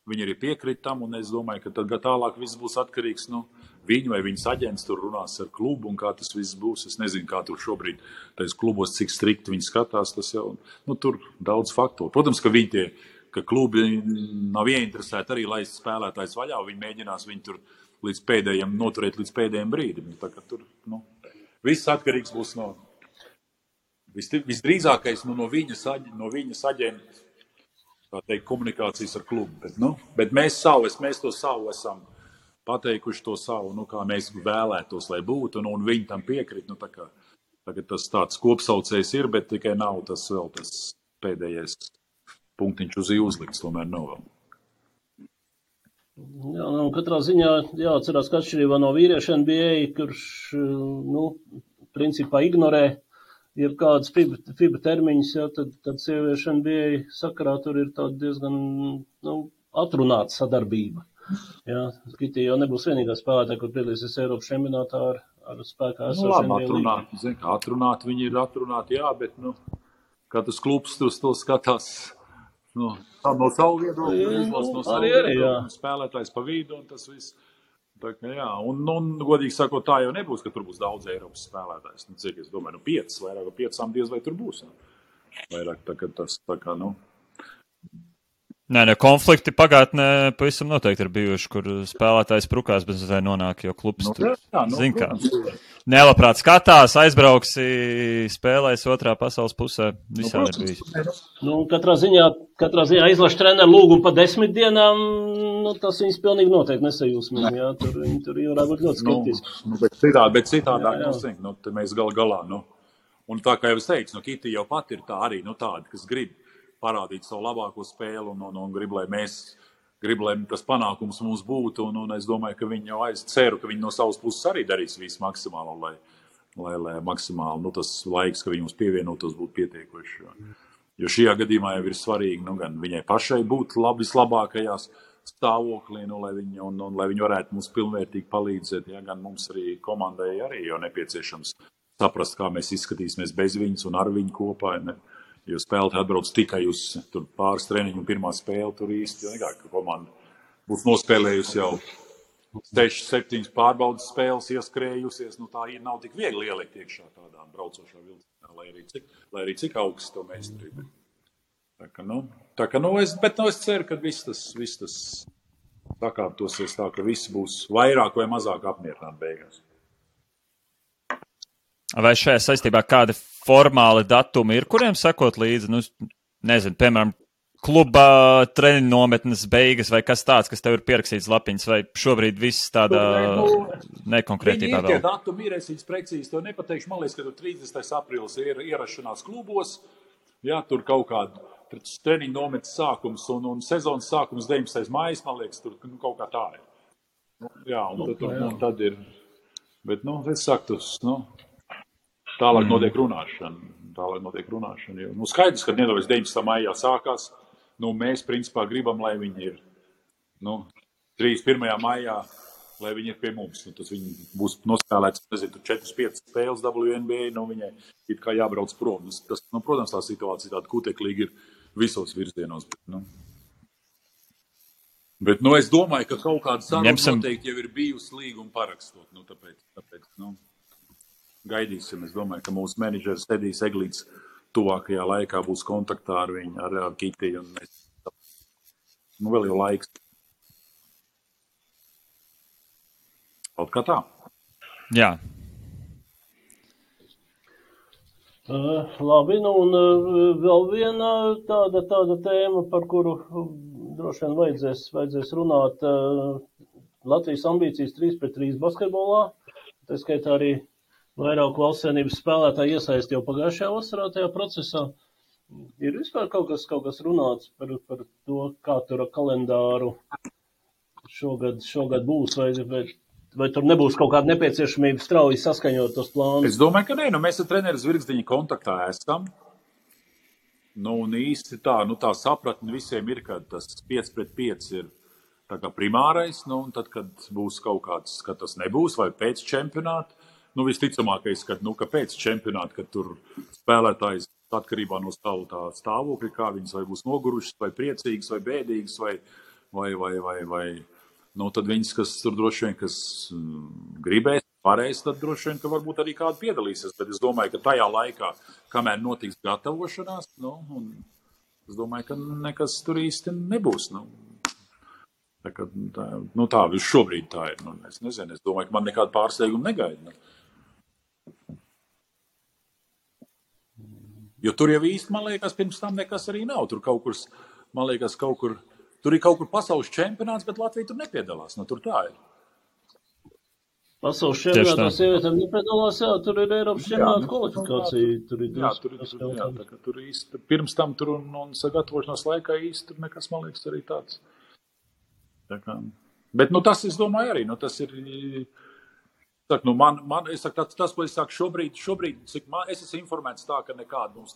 Viņi arī piekrīt tam, un es domāju, ka tad tālāk viss būs atkarīgs no viņu vai viņas aģents tur runās ar klubu, un kā tas viss būs. Es nezinu, kā tur šobrīd tais klubos, cik strikti viņi skatās, tas jau, tur daudz faktoru. Protams, ka klubi nav ieinteresēti arī laist spēlētājs vaļā, viņi mēģinās viņu tur noturēt līdz pēdējiem brīdim. Tā kā tur, viss atkarīgs būs no, visdrīzākais no viņas aģenta. Tā teikt, komunikācijas ar klubu. Bet mēs to savu esam pateikuši to savu, kā mēs vēlētos, lai būtu, un viņi tam piekrīt. Tagad tas tāds kopsaucējs ir, bet tikai nav tas vēl tas pēdējais punktiņš uz uzlikts, tomēr nav vēl. Jā, katrā ziņā jāatcerās, ka atšķirībā no vīriešu NBA, kurš, principā ignorē ir kādas FIBA termiņas, tad sieviešu NBA sakarā tur ir tāda diezgan atrunāta sadarbība. Jā, Kitija jau nebūs vienīgā spēlētāja, kur piedalīsies Eiropas čempionātā ar spēkā esošiem NBA līgumiem. Atrunāti viņi ir atrunāti, jā, bet katrs klubs to skatās no savu viedokļu, no savu viedokļu, spēlētājs pa vidu un tas viss. Tā, jā, un godīgi sakot, tā jau nebūs, ka tur būs daudz Eiropas spēlētājs. Cik es domāju, 5, vairāk par 5 diez vai tur būs. Vairāk tas tā kā, Nē, konflikti pagātnē pavisam noteikti ir bijuši, kur spēlētājs prukās, bet tai nonāk, jo klubs tur, zin kā, nelabprāt skatās, aizbrauksi, spēlēs otrā pasaules pusē, visādi ir bijis. Katrā ziņā izlaša treneru lūgumu pa 10 dienām, tas viņas pilnīgi noteikti nesajūsmīgi, jā, tur varētu būt ļoti skeptiski. Bet citādāk, mēs galā, un tā kā jau es teicu, Kitija jau pat ir tā arī, tāda, kas grib parādīt savu labāko spēli un grib, lai tas panākums mums būtu, un es domāju, ka viņi jau ceru, ka viņi no savas puses arī darīs visu maksimālo, lai maksimāli, tas laiks, ka viņi mums pievienotos, būtu pietiekoši. Jo šajā gadījumā jau ir svarīgi, gan viņai pašai būt vislabākajās stāvoklī, lai viņi varētu mums pilnvērtīgi palīdzēt, gan mums arī komandai arī jau nepieciešams saprast, kā mēs izskatīsimies bez viņas un ar viņu kopā. Ne? Jo spēlētāji atbrauc tikai uz tur pāris treniņu un pirmā spēle tur īsti. Ka komanda būs nospēlējusi jau 6-7 pārbaudas spēles ieskrējusies. Tā nav tik viegli ielikt iekšā tādā braucošā vilcienā, lai arī cik augsts to meistarību. Es ceru, ka viss tas sakārtosies tā, ka visi būs vairāk vai mazāk apmierināti beigās. Vai šajā saistībā kādi formāli datumi ir, kuriem sekot līdzi? Nezinu, piemēram, kluba treniņu nometnes beigas vai kas tāds, kas tev ir pierakstīts lapiņas, vai šobrīd viss tādā nekonkrētībā vēl? Viņi ir tie datumi, ir es precīzi to nepateikšu. Man liekas, ka tur 30. aprīlis ir ierašanās klubos. Jā, tur kaut kāda treniņu nometnes sākums un sezonas sākums 19. mājas, man liekas, tur kaut kā tā ir. Jā, un tad ir. Bet, es saku, tālāk notiek runāšana. Jo, skaidrs, ka nedaudz 19. maijā sākās. Mēs, principā, gribam, lai viņi ir 31. maijā, lai viņi ir pie mums. Tas viņi būs nospēlēts, 4-5 spēles WNBA, viņai it kā jābrauc prom. Protams, tā situācija tāda kuteklīga ir visos virzienos. Bet es domāju, ka kaut kāda saruna noteikti jau ir bijusi līguma parakstot. Tāpēc gaidīsim. Es domāju, ka mūsu menedžeris Edijs Eglīts tuvākajā laikā būs kontaktā ar viņu, ar Kitiju. Vēl jau laiks. Kaut kā tā. Jā. Labi, un vēl viena tāda tēma, par kuru droši vien vajadzēs runāt. Latvijas ambīcijas 3-3 basketbolā. Tā skaitā arī vairāk valsts vienības spēlētāji iesaist jau pagājušajā vasarā tajā procesā. Ir vispār kaut kas runāts par to, kā tur kalendāru šogad būs, vai tur nebūs kaut kāda nepieciešamība strauji saskaņot tos plānus? Es domāju, ka nē. Mēs ar treneru Zvirgzdiņa kontaktā esam. Un īsti tā sapratne visiem ir, ka tas 5-5 ir tā kā primārais. Un tad, kad būs kaut kāds, ka tas nebūs, vai pēc čempionāta, visticamākais, ka pēc čempionāta, kad tur spēlētājs atkarībā no savu tā stāvokļa, kā viņas vai būs nogurušas, vai priecīgas, vai bēdīgas, vai tad viņas, kas tur droši vien, kas gribēs, varēs, tad droši vien, ka varbūt arī kādu piedalīsies. Bet es domāju, ka tajā laikā, kamēr notiks gatavošanās, es domāju, ka nekas tur īsti nebūs. Tā šobrīd tā ir. Es nezinu, es domāju, ka man nekāda pārsteiguma negaida. Jo tur jau īsti, man liekas, pirms tam nekas arī nav. Tur kaut kur, man liekas, tur ir kaut kur pasaules čempionāts, bet Latvija tur nepiedalās. Tur tā ir. Pasaules čempionātā sievietēm nepiedalās, jā, tur ir Eiropas čempionāta kvalifikācija. Tur īsti, pirms tam tur un sagatavošanās laikā īsti tur nekas, man liekas, arī tāds. Bet, tas, es domāju, arī, tas ir, tas, ko es saku šobrīd, cik es esmu informēts tā, ka nekāda mums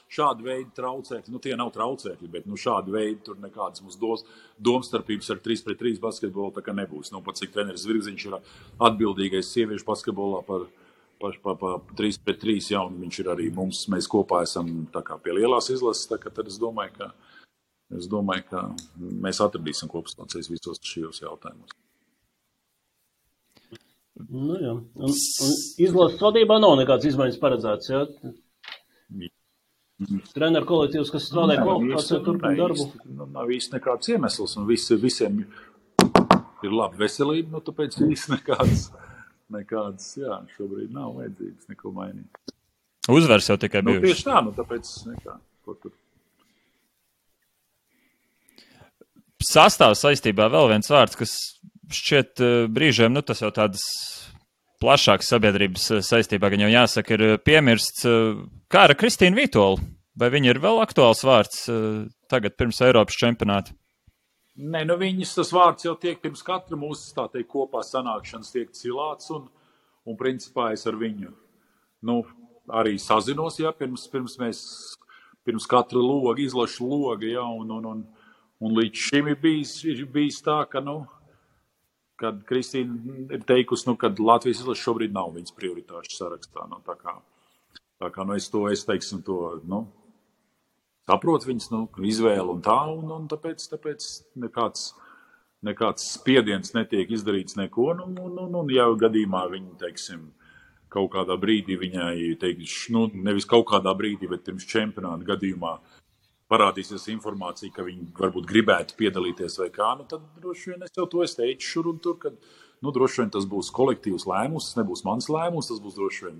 šāda veida traucēkļi, tie nav traucēkļi, bet, šāda veida tur nekādas mums domstarpības ar 3-3 basketbolu tā kā nebūs. Pat cik treneris Zvirgziņš ir atbildīgais sieviešu basketbolā par 3-3, jā, un viņš ir arī mēs kopā esam tā kā pie lielās izlases, tā kā tad es domāju, ka mēs atradīsim kopsaucējus visos šajos jautājumos. Jā. Un izlases vadībā nav nekāds izmaiņas paredzēts, jā? Treneru kolektīvs, kas strādā kvalifikācijā, turpina darbu. Nav īsti nekāds iemesls, un visiem ir laba veselība, tāpēc īsti nekāds, jā, šobrīd nav vajadzīgs neko mainīt. Uzvars jau tikai bijuši. Tieši tā, tāpēc nekā, ko tur. Sastāvs saistībā vēl viens vārds, kas šķiet brīžiem, tas jau tādas plašākas sabiedrības saistībā, gan jau jāsaka, ir piemirsts. Kā ar Kristīnu Vītolu? Vai viņa ir vēl aktuāls vārds tagad pirms Eiropas čempionāta? Nē, viņas tas vārds jau tiek pirms katra mūsu, tā teikt, kopā sanākšanas tiek cilāts, un principā es ar viņu, arī sazinos, jā, pirms katra loga, izlašu loga, jā, un līdz šim ir bijis tā, ka, kad Kristīna ir teikusi, kad Latvijas izlase šobrīd nav viņas prioritāšu sarakstā. Tā kā es teiksim to, saprotu viņas, izvēlu un tā, un tāpēc nekāds spiediens netiek izdarīts neko, un jau gadījumā viņi, teiksim, kaut kādā brīdī viņai, nevis kaut kādā brīdī, bet pirms čempionāta gadījumā parādīsies informācija, ka viņi varbūt gribētu piedalīties vai kā, tad droši vien es jau to teicu šur un tur, kad, droši vien tas būs kolektīvs lēmums, tas nebūs mans lēmums, tas būs droši vien,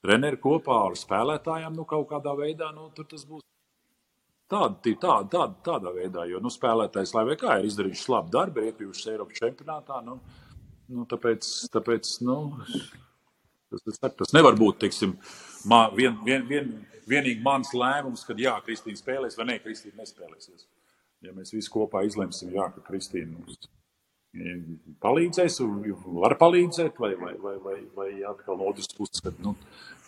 treneri kopā ar spēlētājiem, kaut kādā veidā, tur tas būs tādā veidā, jo, spēlētājs, lai vai kā, ir izdarījuši labu darbu, ir iekļuvušas Eiropas čempionātā, tāpēc, tas nevar būt, teiksim, vienīgi mans lēmums, kad jā, Kristīna spēlēs vai ne, Kristīna nespēlēsies. Ja mēs visi kopā izlemsim, jā, ka Kristīna mums palīdzēs, var palīdzēt, vai atkal no otras puses, kad,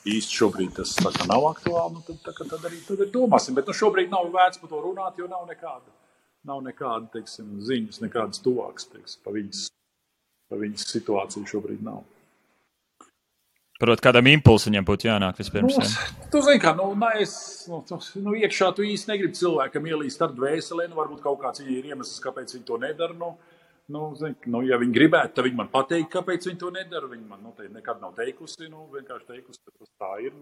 īsti šobrīd tas tā kā nav aktuāli, tad arī domāsim. Bet šobrīd nav vērts par to runāt, jo nav nekāda, teiksim, ziņas, nekādas tuvākas, teiksim, pa viņas situāciju šobrīd nav. Prot, kādam impulsiņam būtu jānāk vispirms. Tu zini, kā, iekšā tu īsti negribi cilvēkam ielīst ar dvēselē, varbūt kaut kāds ir iemesls, kāpēc viņi to nedara, ja viņi gribētu, tad viņi man pateikt, kāpēc viņi to nedara, viņi man nekad nav teikusi, vienkārši teikusi, ka tas tā ir,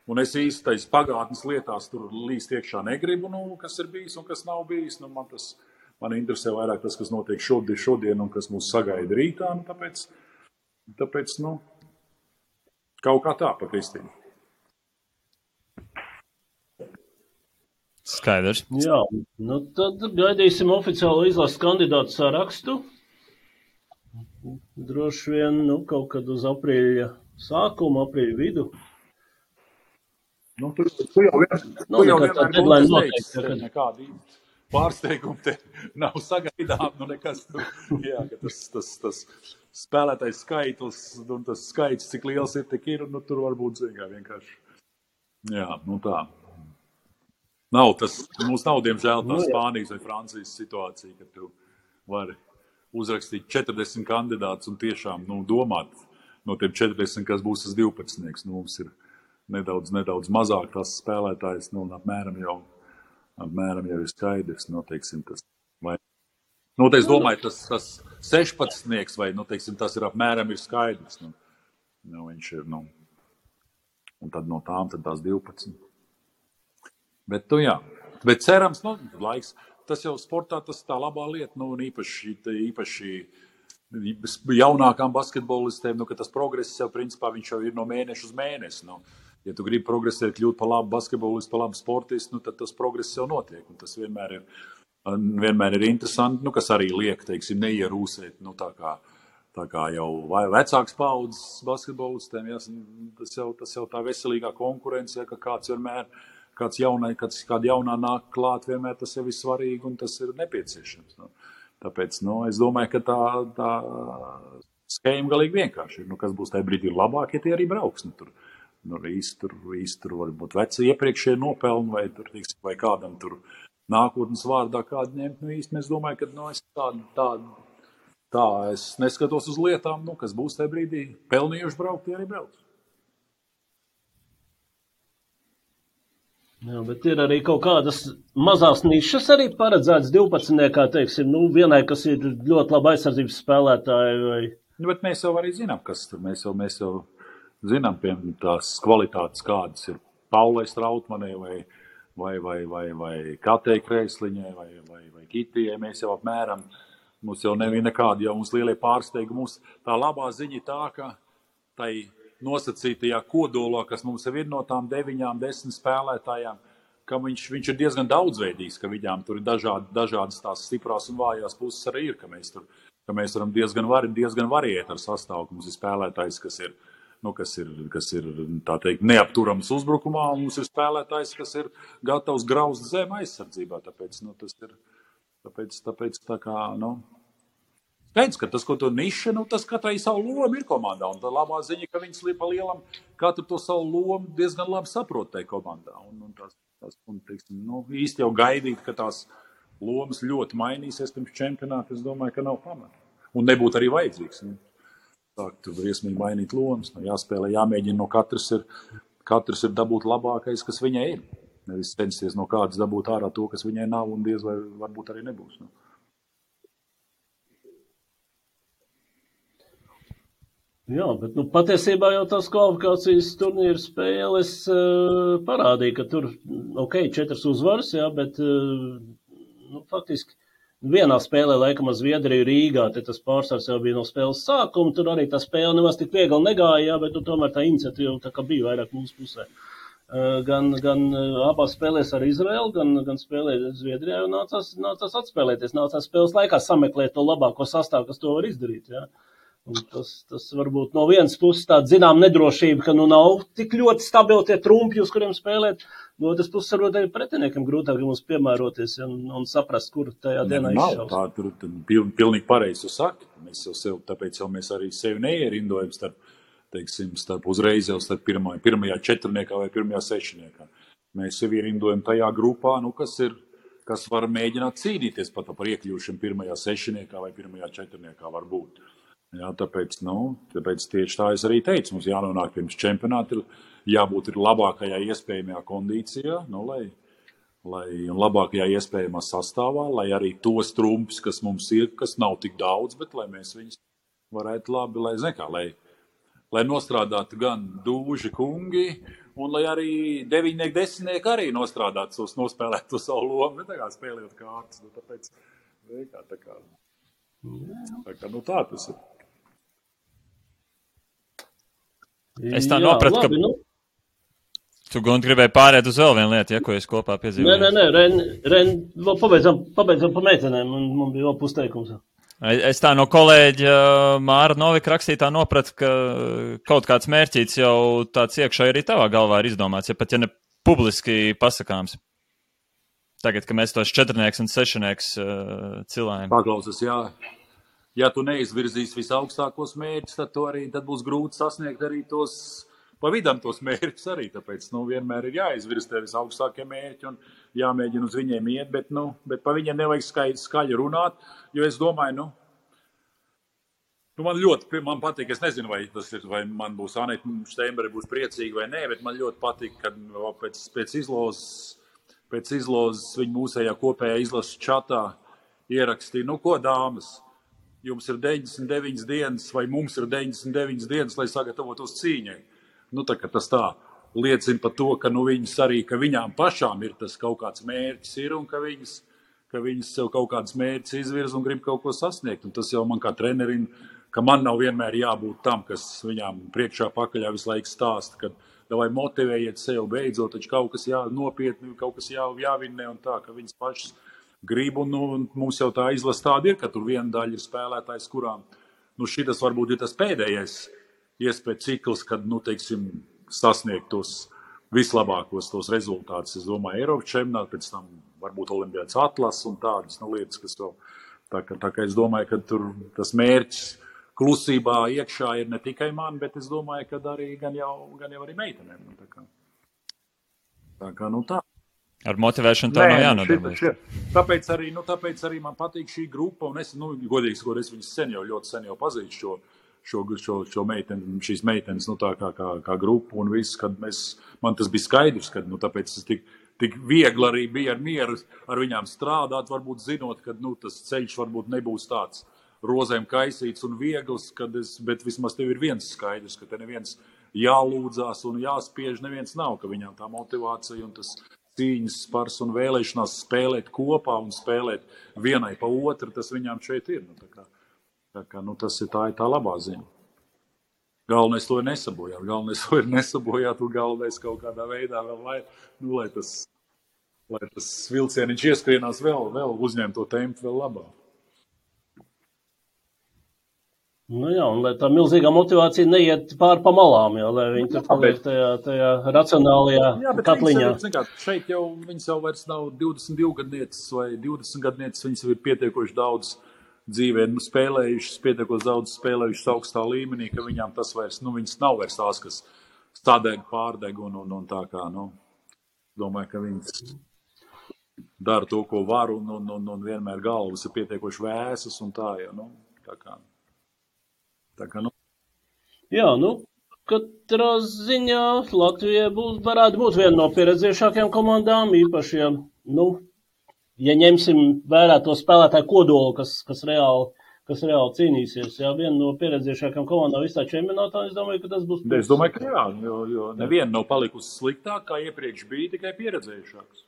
un es īsti tais pagātnes lietās tur līst iekšā negribu, kas ir bijis un kas nav bijis, man interesē vairāk tas, kas notiek šodien un kas mūs sagaida rītā, tāpēc, kaut kā tā pa Kristīnu. Skaidrs. Jā, tad gaidīsim oficiālo izlases kandidātu sarakstu. Droši vien, kaut kad uz aprīļa sākumu, aprīļa vidu. Tu jau vienmēr teici, nekādi pārsteigumi te nav sagaidām, nekas tur, jā, ka tas spēlētais skaitlis, un tas skaits, cik liels ir, tik ir, tur varbūt vienkārši. Jā, tā. Mums nav, diemžēl, tā Spānijas vai Francijas situācija, ka tu vari uzrakstīt 40 kandidātus un tiešām, domāt no tiem 40, kas būs tas 12. Mums ir nedaudz mazāk tās spēlētājs, apmēram jau ir skaidrs, teiksim, tas. Es domāju, tas 16. vai, teiksim, tas ir apmēram ir skaidrs. Viņš ir, un tad no tām tad tās 12. Bet, jā. Bet cerams, laiks, tas jau sportā, tas tā labā lieta, un īpaši jaunākām basketbolistēm, ka tas progress jau, principā, viņš jau ir no mēneša uz mēnesi. Ja tu gribi progresēt, kļūt par labu basketbolistu, par labu sportistu, tad tas progress jau notiek, un tas vienmēr ir interesanti, kas arī liek, teiksim, neierūsēt, tā kā jau vecāks paudzes basketbolistiem, tas jau tā veselīgā konkurence, ka kāda jaunā nāk klāt, vienmēr tas jau ir svarīgi un tas ir nepieciešams. Tāpēc, es domāju, ka tā schēma galīgi vienkārši ir. Kas būs tajā brīdī labāk, ja tie arī brauks. Tur varbūt veci iepriekšēji nopelni vai kādam tur nākotnes vārdā kādu ņemt. Īsti es domāju, ka tā es neskatos uz lietām, kas būs tajā brīdī pelnījuši braukt, tie arī brauks. Jā, bet ir arī kaut kādas mazās nišas arī paredzētas 12. Teiksim, vienai, kas ir ļoti laba aizsardzības spēlētāji vai... Bet mēs jau arī zinām, kas tur. Mēs jau zinām, piemēram, tās kvalitātes, kādas ir Paulai Strautmanai vai Katei Kreisliņai vai Kitijai. Mēs jau apmēram, mums jau nebija nekādi, jau mums lielie pārsteigumi. Mums tā labā ziņa tā, ka tai nosacītajā kodolā, kas mums ir no tām 9-10 spēlētājām, ka viņš ir diezgan daudzveidīgs, ka viņām tur ir dažādas tās stiprās un vājās puses arī ir, ka mēs varam diezgan variēt ar sastāvu, ka mums ir spēlētājs, kas ir tā teikt, neapturams uzbrukumā, un mums ir spēlētājs, kas ir gatavs graust zem aizsardzībā, tāpēc tā kā, Pēc, ka tas, ko to niša, tas katrai savu lomu ir komandā, un tā labā ziņa, ka viņas pa lielam katru to savu lomu diezgan labi saprot tai komandā, un teiksim, īsti jau gaidīt, ka tās lomas ļoti mainīsies pirms čempionāta, es domāju, ka nav pamata. Un nebūtu arī vajadzīgs. Sākt tur briesmīgi mainīt lomas. Jāspēlē, jāmēģina no katrs ir dabūt labākais, kas viņai ir. Nevis censties no kādas dabūt ārā to, kas viņai nav, un diez vai varbūt arī nebūs. Jā, bet patiesībā jau tās kvalifikācijas turnīra spēles parādīja, ka tur, 4 uzvaras, jā, bet faktiski vienā spēlē, laikam, Zviedriju Rīgā, te tas pārsvars jau bija no spēles sākuma, tur arī tā spēle nemaz tik viegli negāja, jā, bet tomēr tā iniciatīva tā kā bija vairāk mūsu pusē. Gan abās spēlēs ar Izraelu, gan spēlē Zviedrijā, un nācās atspēlēties, nācās spēles laikā sameklēt to labāko sastāvu, kas to var izdarīt, jā. Un tas varbūt no vienas puses tāda zinām nedrošība, ka nav tik ļoti stabili tie trumpi, uz kuriem spēlēt. No otras puses varbūt arī pretiniekam grūtāk mums piemēroties un saprast, kur tajā dienā izšaus. Tā tur pilnīgi pareizi tu saki. Mēs jau sev, tāpēc jau mēs arī sevi neierindojam starp uzreiz jau starp pirmajā četrniekā vai pirmajā sešniekā. Mēs sevi ierindojam tajā grupā, kas var mēģināt cīnīties pat par iekļūšanu pirmajā sešniekā vai pirmajā četrniekā varbūt. Jā, tāpēc tieši tā es arī teicu, mums jānonāk pirms čempionāta, jābūt ir labākajā iespējamajā kondīcijā, un labākajā iespējamā sastāvā, lai arī tos trumpus, kas mums ir, kas nav tik daudz, bet lai mēs viņus varētu labi, lai nostrādātu gan dūži kungi, un lai arī 9, 10 arī nostrādātu, nospēlētu to savu lomu, ne tā kā spēlējot kārtas, tāpēc tā tas ir. Es tā nopratu, ka tu, Gunti, gribēji pārēt uz vēl vienu lietu, ko es kopā piedzīvoju. Nē, vēl pabeidzam pa meitenēm, un man bija vēl pusteikums. Es tā no kolēģa Māra Novika rakstītā nopratu, ka kaut kāds mērķīts jau tāds iekšā arī tavā galvā ir izdomāts, ja pat ja ne publiski pasakāms. Tagad, ka mēs tos četrnieks un sešnieks cilājam. Paklausas, jā. Ja tu neizvirzīs visaugstākos mērķus, tad būs grūti sasniegt arī tos pa vidam tos mērķus arī. Tāpēc vienmēr ir jāizvirz tev visaugstākie mērķi un jāmēģina uz viņiem iet, bet pa viņiem nevajag skaļi runāt, jo es domāju, man patīk, es nezinu, vai man būs Anita Steinberga būs priecīga vai nē, bet man ļoti patīk, kad pēc izlozes viņa mūsējā kopējā izlases čatā ierakstīja, ko dāmas, jums ir 99 dienas vai mums ir 99 dienas, lai sagatavotos cīņai. Tas tā liecina par to, ka viņas arī, ka viņām pašām ir tas kaut kāds mērķis ir un ka viņas sev kaut kāds mērķis izvirz un grib kaut ko sasniegt. Un tas jau man kā trenerim, ka man nav vienmēr jābūt tam, kas viņām priekšā pakaļā visu laiku stāsta, ka vai motivējiet sev beidzot, taču kaut kas nopietni, kaut kas jāvinnē un tā, ka viņas pašas grib, un mums jau tā izlase tāda ir, ka tur viena daļa ir spēlētājs, kurām, šitas varbūt ir tas pēdējais iespēja cikls, kad, sasniegt tos vislabākos tos rezultātus. Es domāju, Eiropas čempionātā, pēc tam varbūt Olimpiādas atlases un tādas lietas, kas vēl, tā kā es domāju, ka tur tas mērķis klusībā iekšā ir ne tikai man, bet es domāju, ka arī gan jau arī meitenēm. Tā kā, tā. Ar motivēšanu tā nav jānodarbojas. Tāpēc arī man patīk šī grupa, un es, godīgi sakot, es viņas ļoti sen jau pazīstu šo meiteni, šīs meitenes, tā kā grupu, un viss, kad man tas bija skaidrs, kad, tāpēc es tik viegli arī bija ar mieru ar viņām strādāt, varbūt zinot, ka, tas ceļš varbūt nebūs tāds rozēm kaisīts un viegls, bet vismaz tev ir viens skaidrs, ka te neviens jālūdzās un jāspiež, neviens nav, ka viņām tā motivācija un tas cīņas spars un vēlēšanās spēlēt kopā un spēlēt vienai pa otru, tas viņām šeit ir. Tas ir tā labā ziņa. Galvenais to ir nesabojāt, un galvenais kaut kādā veidā vēl, lai tas vilcieniņš ieskrienās vēl uzņemt to tempu vēl labāk. Jā, un lai tā milzīgā motivācija neiet pār pa malām, lai viņi tur paliek tajā racionālajā katliņā. Šeit jau viņas jau vairs nav 22 gadnieces vai 20 gadnieces, viņas ir pietiekoši daudz dzīvē spēlējušas, pietiekoši daudz spēlējušas augstā līmenī, ka viņām tas vairs, viņas nav vairs tās, kas stādēg, pārdeg un tā kā, domāju, ka viņas dara to, ko var un vienmēr galvas ir pietiekoši vēsas un tā, Tā kā, nu. Jā, katrā ziņā Latvija varētu būt viena no pieredzējušākajām komandām, īpaši, ja ņemsim vērā to spēlētāju kodolu, kas reāli cīnīsies. Jā, viena no pieredzējušākajām komandām visā čempionātā, es domāju, ka tas būs. Es domāju, ka jā, jo neviena nav palikusi sliktāk, kā iepriekš bija, tikai pieredzējušāks.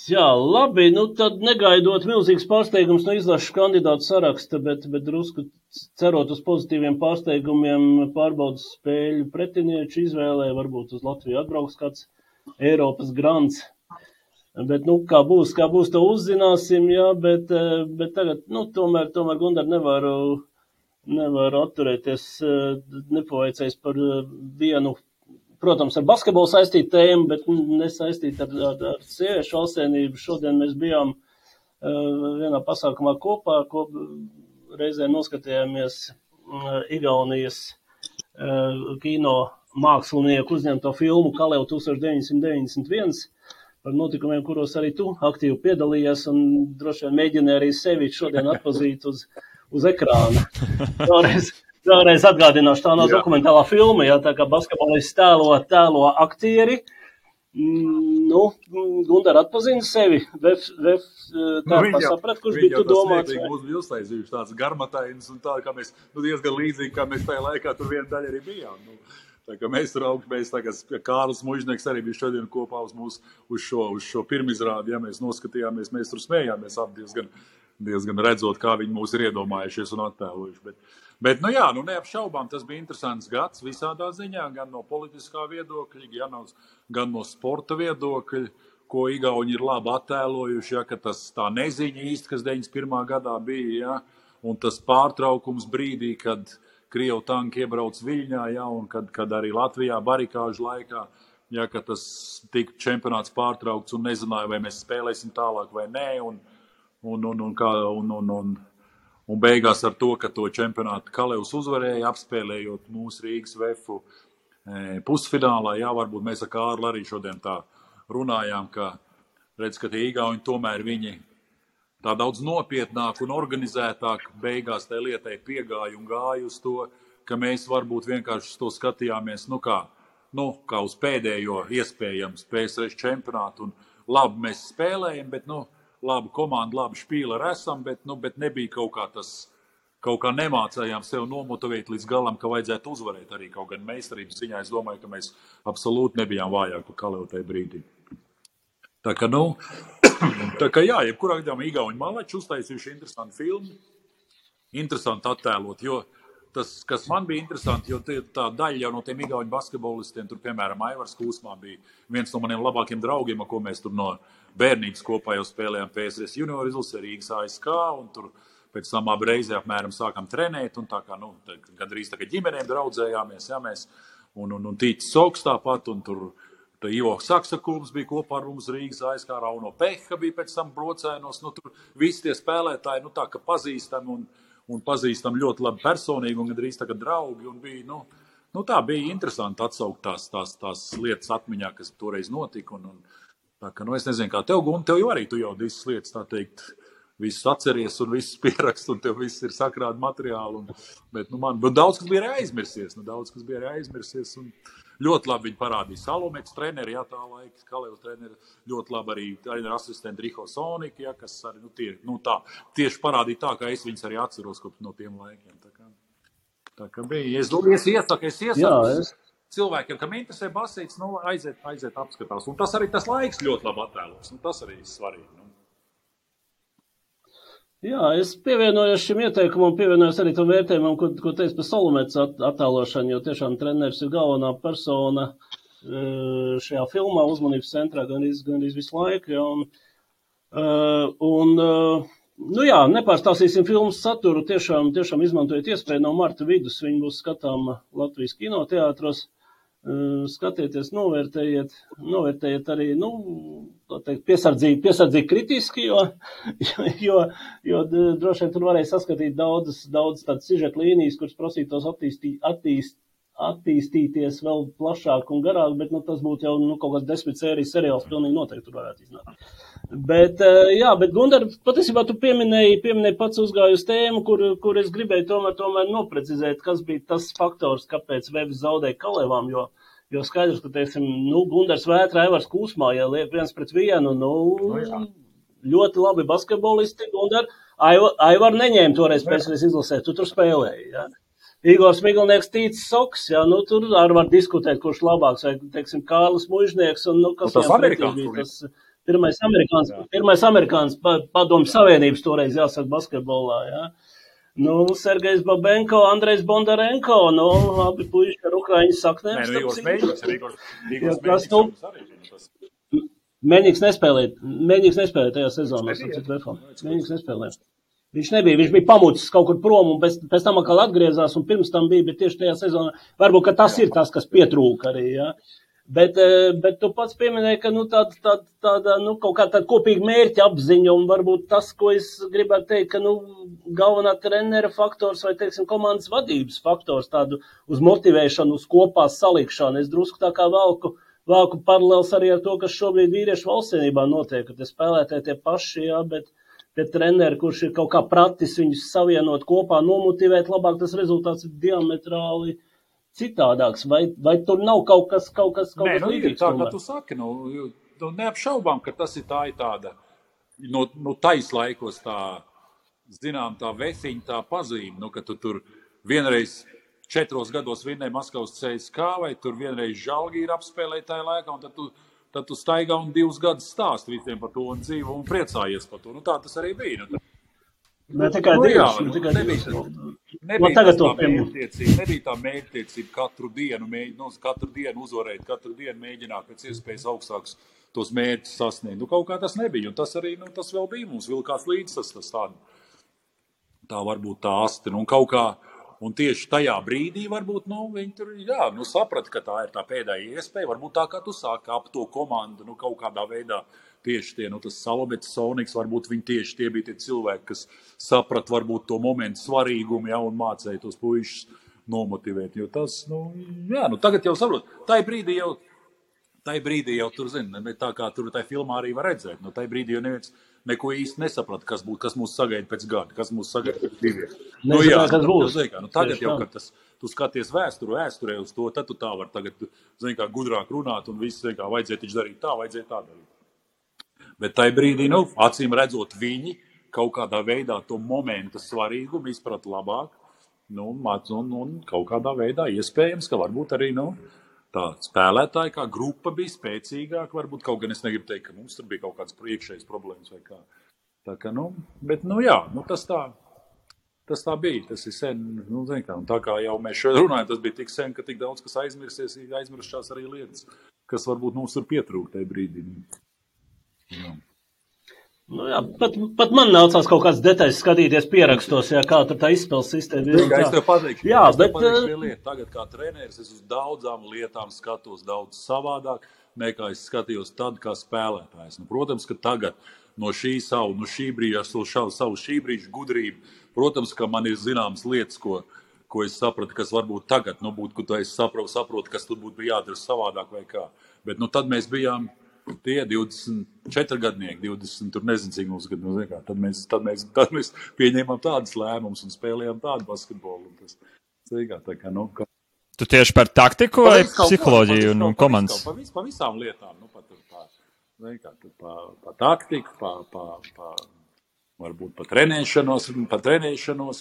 Jā, labi, tad negaidot milzīgs pārsteigums no izlašu kandidātu saraksta, bet drusku cerot uz pozitīviem pārsteigumiem pārbaudas spēļu pretinieču izvēlē, varbūt uz Latviju atbrauks kāds Eiropas grants. Bet, kā būs, to uzzināsim, jā, bet tagad, tomēr Gundar nevaru atturēties, nepaveicējis par vienu, protams, ar basketbolu saistītu tēmu, bet nesaistītu ar sieviešu valstsvienību. Šodien mēs bijām vienā pasākumā kopā, reizē noskatījāmies Igaunijas kino mākslinieku uzņemto filmu Kaleu 1991 par notikumiem, kuros arī tu aktīvi piedalījies un droši vien mēģināji arī sevi šodien atpazīt uz ekrāna. Vēlreiz atgādināšu, tā nav dokumentālā filma, jā, tā kā basketbolists tēlo aktieri. Gundar atpazina sevi, saprat, kurš bija tu domāts. Viņa mūs bija uztaisījuši tāds garmatains un tā, kā mēs, diezgan līdzīgi, kā mēs tajā laikā tur viena daļa arī bijām. Tā kā mēs tur augšmēs, tā kā Kārlis Mužnieks arī bija šodien kopā uz šo pirmizrādi, ja mēs noskatījāmies, mēs tur smējāmies ap diezgan redzot, kā viņi mūs ir iedomājušies un attēlojuši. Bet neapšaubām, tas bija interesants gads visādā ziņā, gan no politiskā viedokļa, gan no sporta viedokļa, ko Igauni ir labi attēlojuši, ja, ka tas tā neziņa īsti, kas 91. gadā bija, ja, un tas pārtraukums brīdī, kad Krievu tanki iebrauc Viļņā, ja, un kad arī Latvijā barikāžu laikā, ja, ka tas tika čempionāts pārtraukts un nezināja, vai mēs spēlēsim tālāk vai nē, un beigās ar to, ka to čempionātu Kalevs uzvarēja, apspēlējot mūsu Rīgas Vefu pusfinālā, jā, varbūt mēs ar Kārli arī šodien tā runājām, ka redz, ka tie Igauni tomēr viņi tā daudz nopietnāk un organizētāk beigās tai lietai piegāja un gāja uz to, ka mēs varbūt vienkārši to skatījāmies, kā uz pēdējo iespējams PSRS čempionātu, un labi mēs spēlējam, bet, labi komanda, labi špīleri esam, bet nebija kaut kā nemācējām sev nomotivēt līdz galam, ka vajadzētu uzvarēt arī kaut gan meistarības ziņā. Es domāju, ka mēs absolūti nebijām vājāk par Kalevu tajā brīdī. Tā kā jā, jebkurā gadījumā Igauni malači uztaisījuši interesantu filmu, interesanti attēlot, jo tas, kas man bija interesanti, jo tā daļa jau no tiem Igauni basketbolistiem, tur, piemēram, Aivars Kūsmā bija viens no maniem labākiem draugiem, ar ko mēs tur no bērnības kopā jau spēlējām PSRS junior izlasē Rīgas ASK, un tur pēc tam abi reizē apmēram sākam trenēt, un tā kā, gandrīz tā kā ģimenēm draudzējāmies, jā, mēs, un Tītis Soks tāpat, un tur Ivo Saksakulms bija kopā ar mums Rīgas ASK, Rauno Peha bija pēc tam brocēnos, tur visi tie spēlētāji, tā kā pazīstam un pazīstam ļoti labi personīgi un gandrīz tā kā draugi, un bija, tā bija interesanti atsaukt tās lietas atmiņā, kas toreiz notika, un tā kā, es nezinu, kā tev, Gun, tev jau arī, tu jau visas lietas, tā teikt, visus atceries un visus pierakst, un tev viss ir sakrādi materiāli, bet daudz, kas bija arī aizmirsies, un ļoti labi viņi parādīja Salomets treneri, jā, tā laika, Kalevs treneri, ļoti labi arī ar asistentu Riho Soniku, jā, kas arī, tieši parādīja tā, kā es viņus arī atceros kopš no tiem laikiem, tā kā bija. Es iesaku cilvēkiem, kam interesē basīts, aiziet apskatās, un tas arī tas laiks ļoti labi attēlos, tas arī ir svarīgi, Jā, es pievienojos šim ieteikumam, pievienojos arī tam vērtējumam, ko teicu par Salomets attēlošanu, jo tiešām treneris ir galvenā persona šajā filmā, uzmanības centrā gandrīz visu laiku. Ja, nepārstāstīsim filmas saturu, tiešām izmantojiet iespēju no marta vidus, viņi būs skatāma Latvijas kinoteātros. Skatieties, novērtējiet arī, tā teikt, piesardzīgi kritiski, jo droši vien tur varēja saskatīt daudz tādas sižeta līnijas, kuras prasītos attīstīties vēl plašāk un garāk, bet tas būtu jau kaut kāds 10 sērijas seriāls, pilnīgi noteikti tur varētu iznākt. Bet Gundar, patiesībā tu pieminēji pats uzgāju uz tēmu, kur es gribēju tomēr noprecizēt, kas bija tas faktors, kāpēc Vevs zaudēja Kalevām, jo skaidrs, ka, teiksim, Gundars Vētra, Aivars Kūsmā, ja liek 1-1, ļoti labi basketbolisti, Gundar, Aivar neņēma toreiz pēcreiz izlasēt, tu tur spēlēji, ja. Igors Miglnieks, Tīts Soks, ja, tur arī var diskutēt, kurš labāks, vai, teiksim, Kārlis Mužnieks, un, kas viņam pretī bija tas... Pirmais amerikāns padomju savienības toreiz jāsaka basketbolā, jā. Sergejs Babenko, Andrejs Bondarenko, abi puiši ar ukraiņu saknēm. Meņiks nespēlēja tajā sezonā, Meņiks nespēlēja. Viņš nebija, viņš bija pamucis kaut kur prom un pēc tam atkal atgriezās un pirms tam bija, bet tieši tajā sezonā, varbūt, ka tas ir tas, kas pietrūka arī, jā. Bet tu pats pieminēji, ka tāda kaut kā tāda kopīga mērķa apziņa un varbūt tas, ko es gribētu teikt, ka galvenā trenera faktors vai, teiksim, komandas vadības faktors tādu uz motivēšanu, uz kopā salikšanu. Es drusku tā kā valku paralēls arī ar to, kas šobrīd vīriešu valstsienībā notiek, ka te spēlētāji tie paši, jā, bet treneri, kurš ir kaut kā pratis viņus savienot kopā, nomotivēt labāk, tas rezultāts ir diametrāli citādāks, vai tur nav kaut kas līdzīgs? Tā, kā tu saki, neapšaubām, ka tas ir tāda, taislaikos tā, zinām, tā vefiņa, tā pazīme, ka tu tur vienreiz 4 gados vinnēji Maskavas CSKA, vai tur vienreiz Žalgīri apspēlēji tajā laikā, un tad tu staigā un 2 gadus stāst visiem par to un dzīvo un priecājies par to. Tā tas arī bija. Ne tikai divas. Nebija tā mērķtiecība katru dienu uzvarēt, katru dienu mēģināt pēc iespējas augstākus tos mērķus sasniegt. Kaut kā tas nebija, un tas arī, tas vēl bija mums vilkās līdz tas tā varbūt tā asti, un kaut kā, un tieši tajā brīdī varbūt, viņi tur, saprata, ka tā ir tā pēdējā iespēja, varbūt tā, kā tu sāki ap to komandu, kaut kādā veidā, tieši tie, tas Salobets, Soniks, varbūt viņi tieši tie bija tie cilvēki, kas saprat varbūt to momentu svarīgumu, un mācēja tos puišus nomotivēt, jo tas, tagad jau saprot, tai brīdī jau tur, tā kā tur tai filmā arī var redzēt, tai brīdī jau neviens neko īsti nesaprata, kas mūs sagaida pēc gada, kas mūs sagaida pēc 2. Tagad jau, kad tu skaties vēsturē uz to, tad tu tā var tagad, gudrāk runāt un viss, vajadzēja taču darīt tā, vajadzēja tā darīt. Bet tai brīdī, acīm redzot, viņi kaut kādā veidā to momenta svarīgumu izprata labāk, un kaut kādā veidā iespējams, ka varbūt arī, tā spēlētāji kā grupa bija spēcīgāka, varbūt kaut gan es negribu teikt, ka mums tur bija kaut kāds priekšējs problēmas vai kā. Tā kā, tas tā bija, tas ir sen, un tā kā jau mēs šeit runājam, tas bija tik sen, ka tik daudz, kas aizmirstās arī lietas, kas varbūt mums tur pietrūk tajā brīdī. Pat man nācās kaut kāds detaļas skatīties pierakstos, kā tur tā izspēles sistēma ir. Es tev pateikšu, lieta. Tagad kā treneris es uz daudzām lietām skatos daudz savādāk, nekā es skatījos tad kā spēlētājs. Protams, ka tagad no šī brīža gudrība, protams, ka man ir zināmas lietas, ko es sapratu, kas varbūt tagad, būtu, ka es saprotu, kas tur būtu jādara savādāk vai kā. Bet tad mēs bijām tie 24 gadnieki, 20, tur nezinu, cik mums gadu, tad mēs pieņēmām tādas lēmumus un spēlējām tādu basketbolu. Tu tieši par taktiku vai psiholoģiju un komandas? Pa visām lietām, pa taktiku, varbūt pa trenēšanos,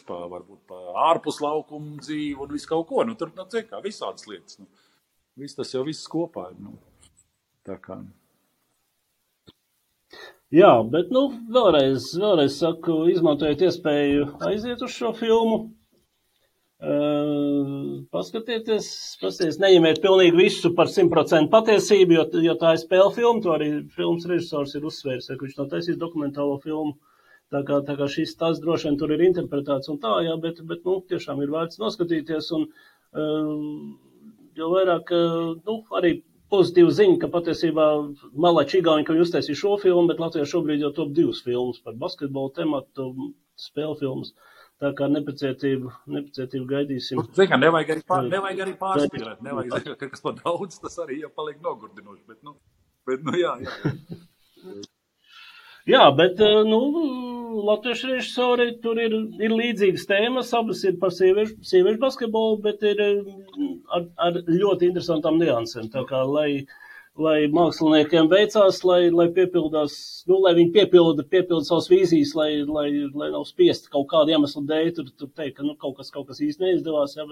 varbūt pa ārpus laukumu dzīvi un visu kaut ko. Tur, visādas lietas. Tas jau viss kopā ir. Tā kā... Jā, bet, vēlreiz saku, izmantojiet iespēju aiziet uz šo filmu, paskatieties, neņemiet pilnīgi visu par 100% patiesību, jo tā ir spēle filma, to arī filmas režisors ir uzsvērs, ka viņš nav taisījis dokumentālo filmu, tā kā šis tas droši vien tur ir interpretēts un tā, jā, bet tiešām ir vērts noskatīties, un jo vairāk, arī pozitīva ziņa, ka patiesībā Malači Igauņi, ka viņi uztaisīja šo filmu, bet Latvijā šobrīd jau top 2 filmas par basketbolu tematu, spēle filmas. Tā kā nepacietību gaidīsim. Nevajag arī pārspīlēt. Nevajag, ka kas par daudz, tas arī jau paliek nogurdinoši. Bet jā. Jā, bet, latviešu režisori tur ir līdzīgas tēmas, abas ir par sieviešu basketbolu, bet ir ar ļoti interesantām niansēm. Tā kā, lai māksliniekiem veicās, lai piepildās, lai viņi piepilda savas vīzijas, lai nav spiesti kaut kādu iemeslu dēļ, tur teikt, ka kaut kas īsti neizdevās, jā,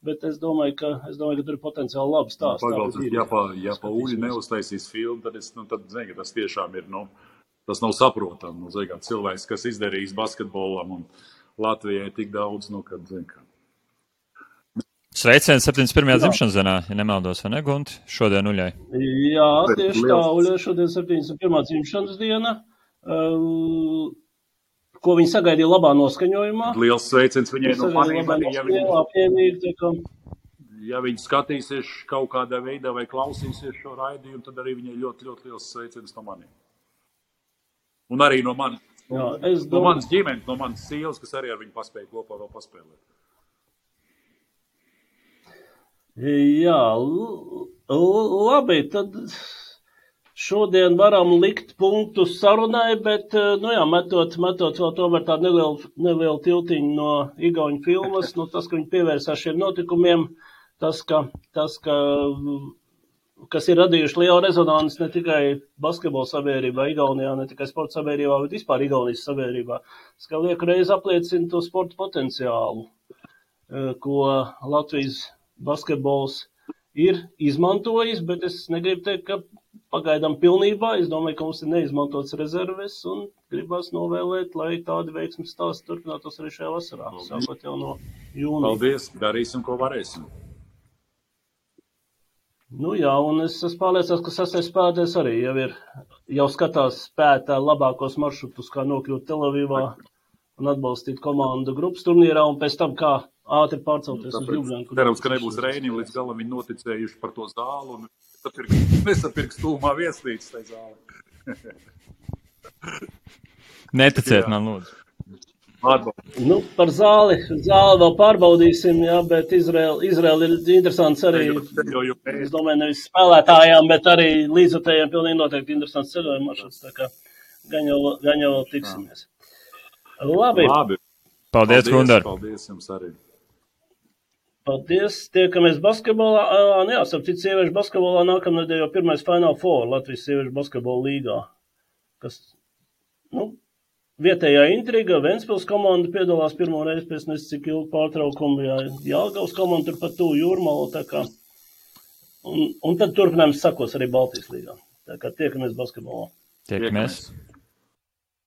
bet es domāju, ka tur ir potenciāli labi stāsti. Pagaldies, ja pa Uļi neuztaisīs filmu, tad zinu, ka tas tiešām ir, tas nav saprotam. Cilvēks, kas izdarījis basketbolam un Latvijai tik daudz, kad, zinu, ka. Sveiciens 71. dzimšanas dienā, ja nemaldos, vai ne, Gunti? Šodien Uļai. Jā, tieši tā, Uļai šodien 71. dzimšanas diena, ko viņi sagaidīja labā noskaņojumā. Liels sveiciens viņai no maniem arī, ja viņi skatīsies kaut kādā veidā vai klausīsies šo raidījumu, tad arī viņai ļoti, ļoti liels sveiciens no maniem. Un arī no manis. Jā, no manas ģimenes, no manas sievas, kas arī ar viņu paspēja kopā vēl paspēlēt. Jā, labi, tad šodien varam likt punktu sarunai, bet, metot vēl tomēr tādu nelielu tiltiņu no igauņu filmas, tas, ka viņi pievērsās šiem notikumiem, tas, kas ir radījuši lielu rezonanci ne tikai basketbola sabiedrībā Igaunijā, ne tikai sporta sabiedrībā, bet vispār Igaunijas sabiedrībā. Tas, ka lieku reizi apliecina to sporta potenciālu, ko Latvijas basketbols ir izmantojis, bet es negribu teikt, ka pagaidām pilnībā. Es domāju, ka mums ir neizmantots rezerves un gribas novēlēt, lai tādi veiksmes stāsti turpinātos arī šajā vasarā, sākot jau no jūnija. Paldies, darīsim, ko varēsim. Jā, un es esmu pārliecināts, ka sastais spēlētājs arī jau skatās spētā labākos maršrutus, kā nokļūt Telavivā un atbalstīt komandu grupas turnīrā, un pēc tam kā ātri pārcelties uz Ljubljanu. Cerams, ka nebūs Reini, līdz galam viņi noticējuši par to zālu un nesapirks tūmā viesnīcas tai zāli. Neticiet man, lūdzu. Par zāli vēl pārbaudīsim, jā, bet Izraela ir interesants arī, es domāju, nevis spēlētājām, bet arī līdzotējiem pilnīgi noteikti interesants ceļojuma maršruts, tā kā gan jau tiksimies. Labi. Paldies, Gundar. Paldies jums arī. Paldies, tiekamies basketbolā. Starp citu, sieviešu basketbolā nākamnedēļ jau pirmais Final Four Latvijas sieviešu basketbola līgā, kas, vietējā intriga, Ventspils komanda piedalās pirmo reizi pēc cik ilgu pārtraukumu, Jelgavas komanda tur pat tuvu Jūrmalu, tā kā, un tad turpinājums sakos arī Baltijas līgā. Tā kā tiekamies basketbolā. Tiekamies.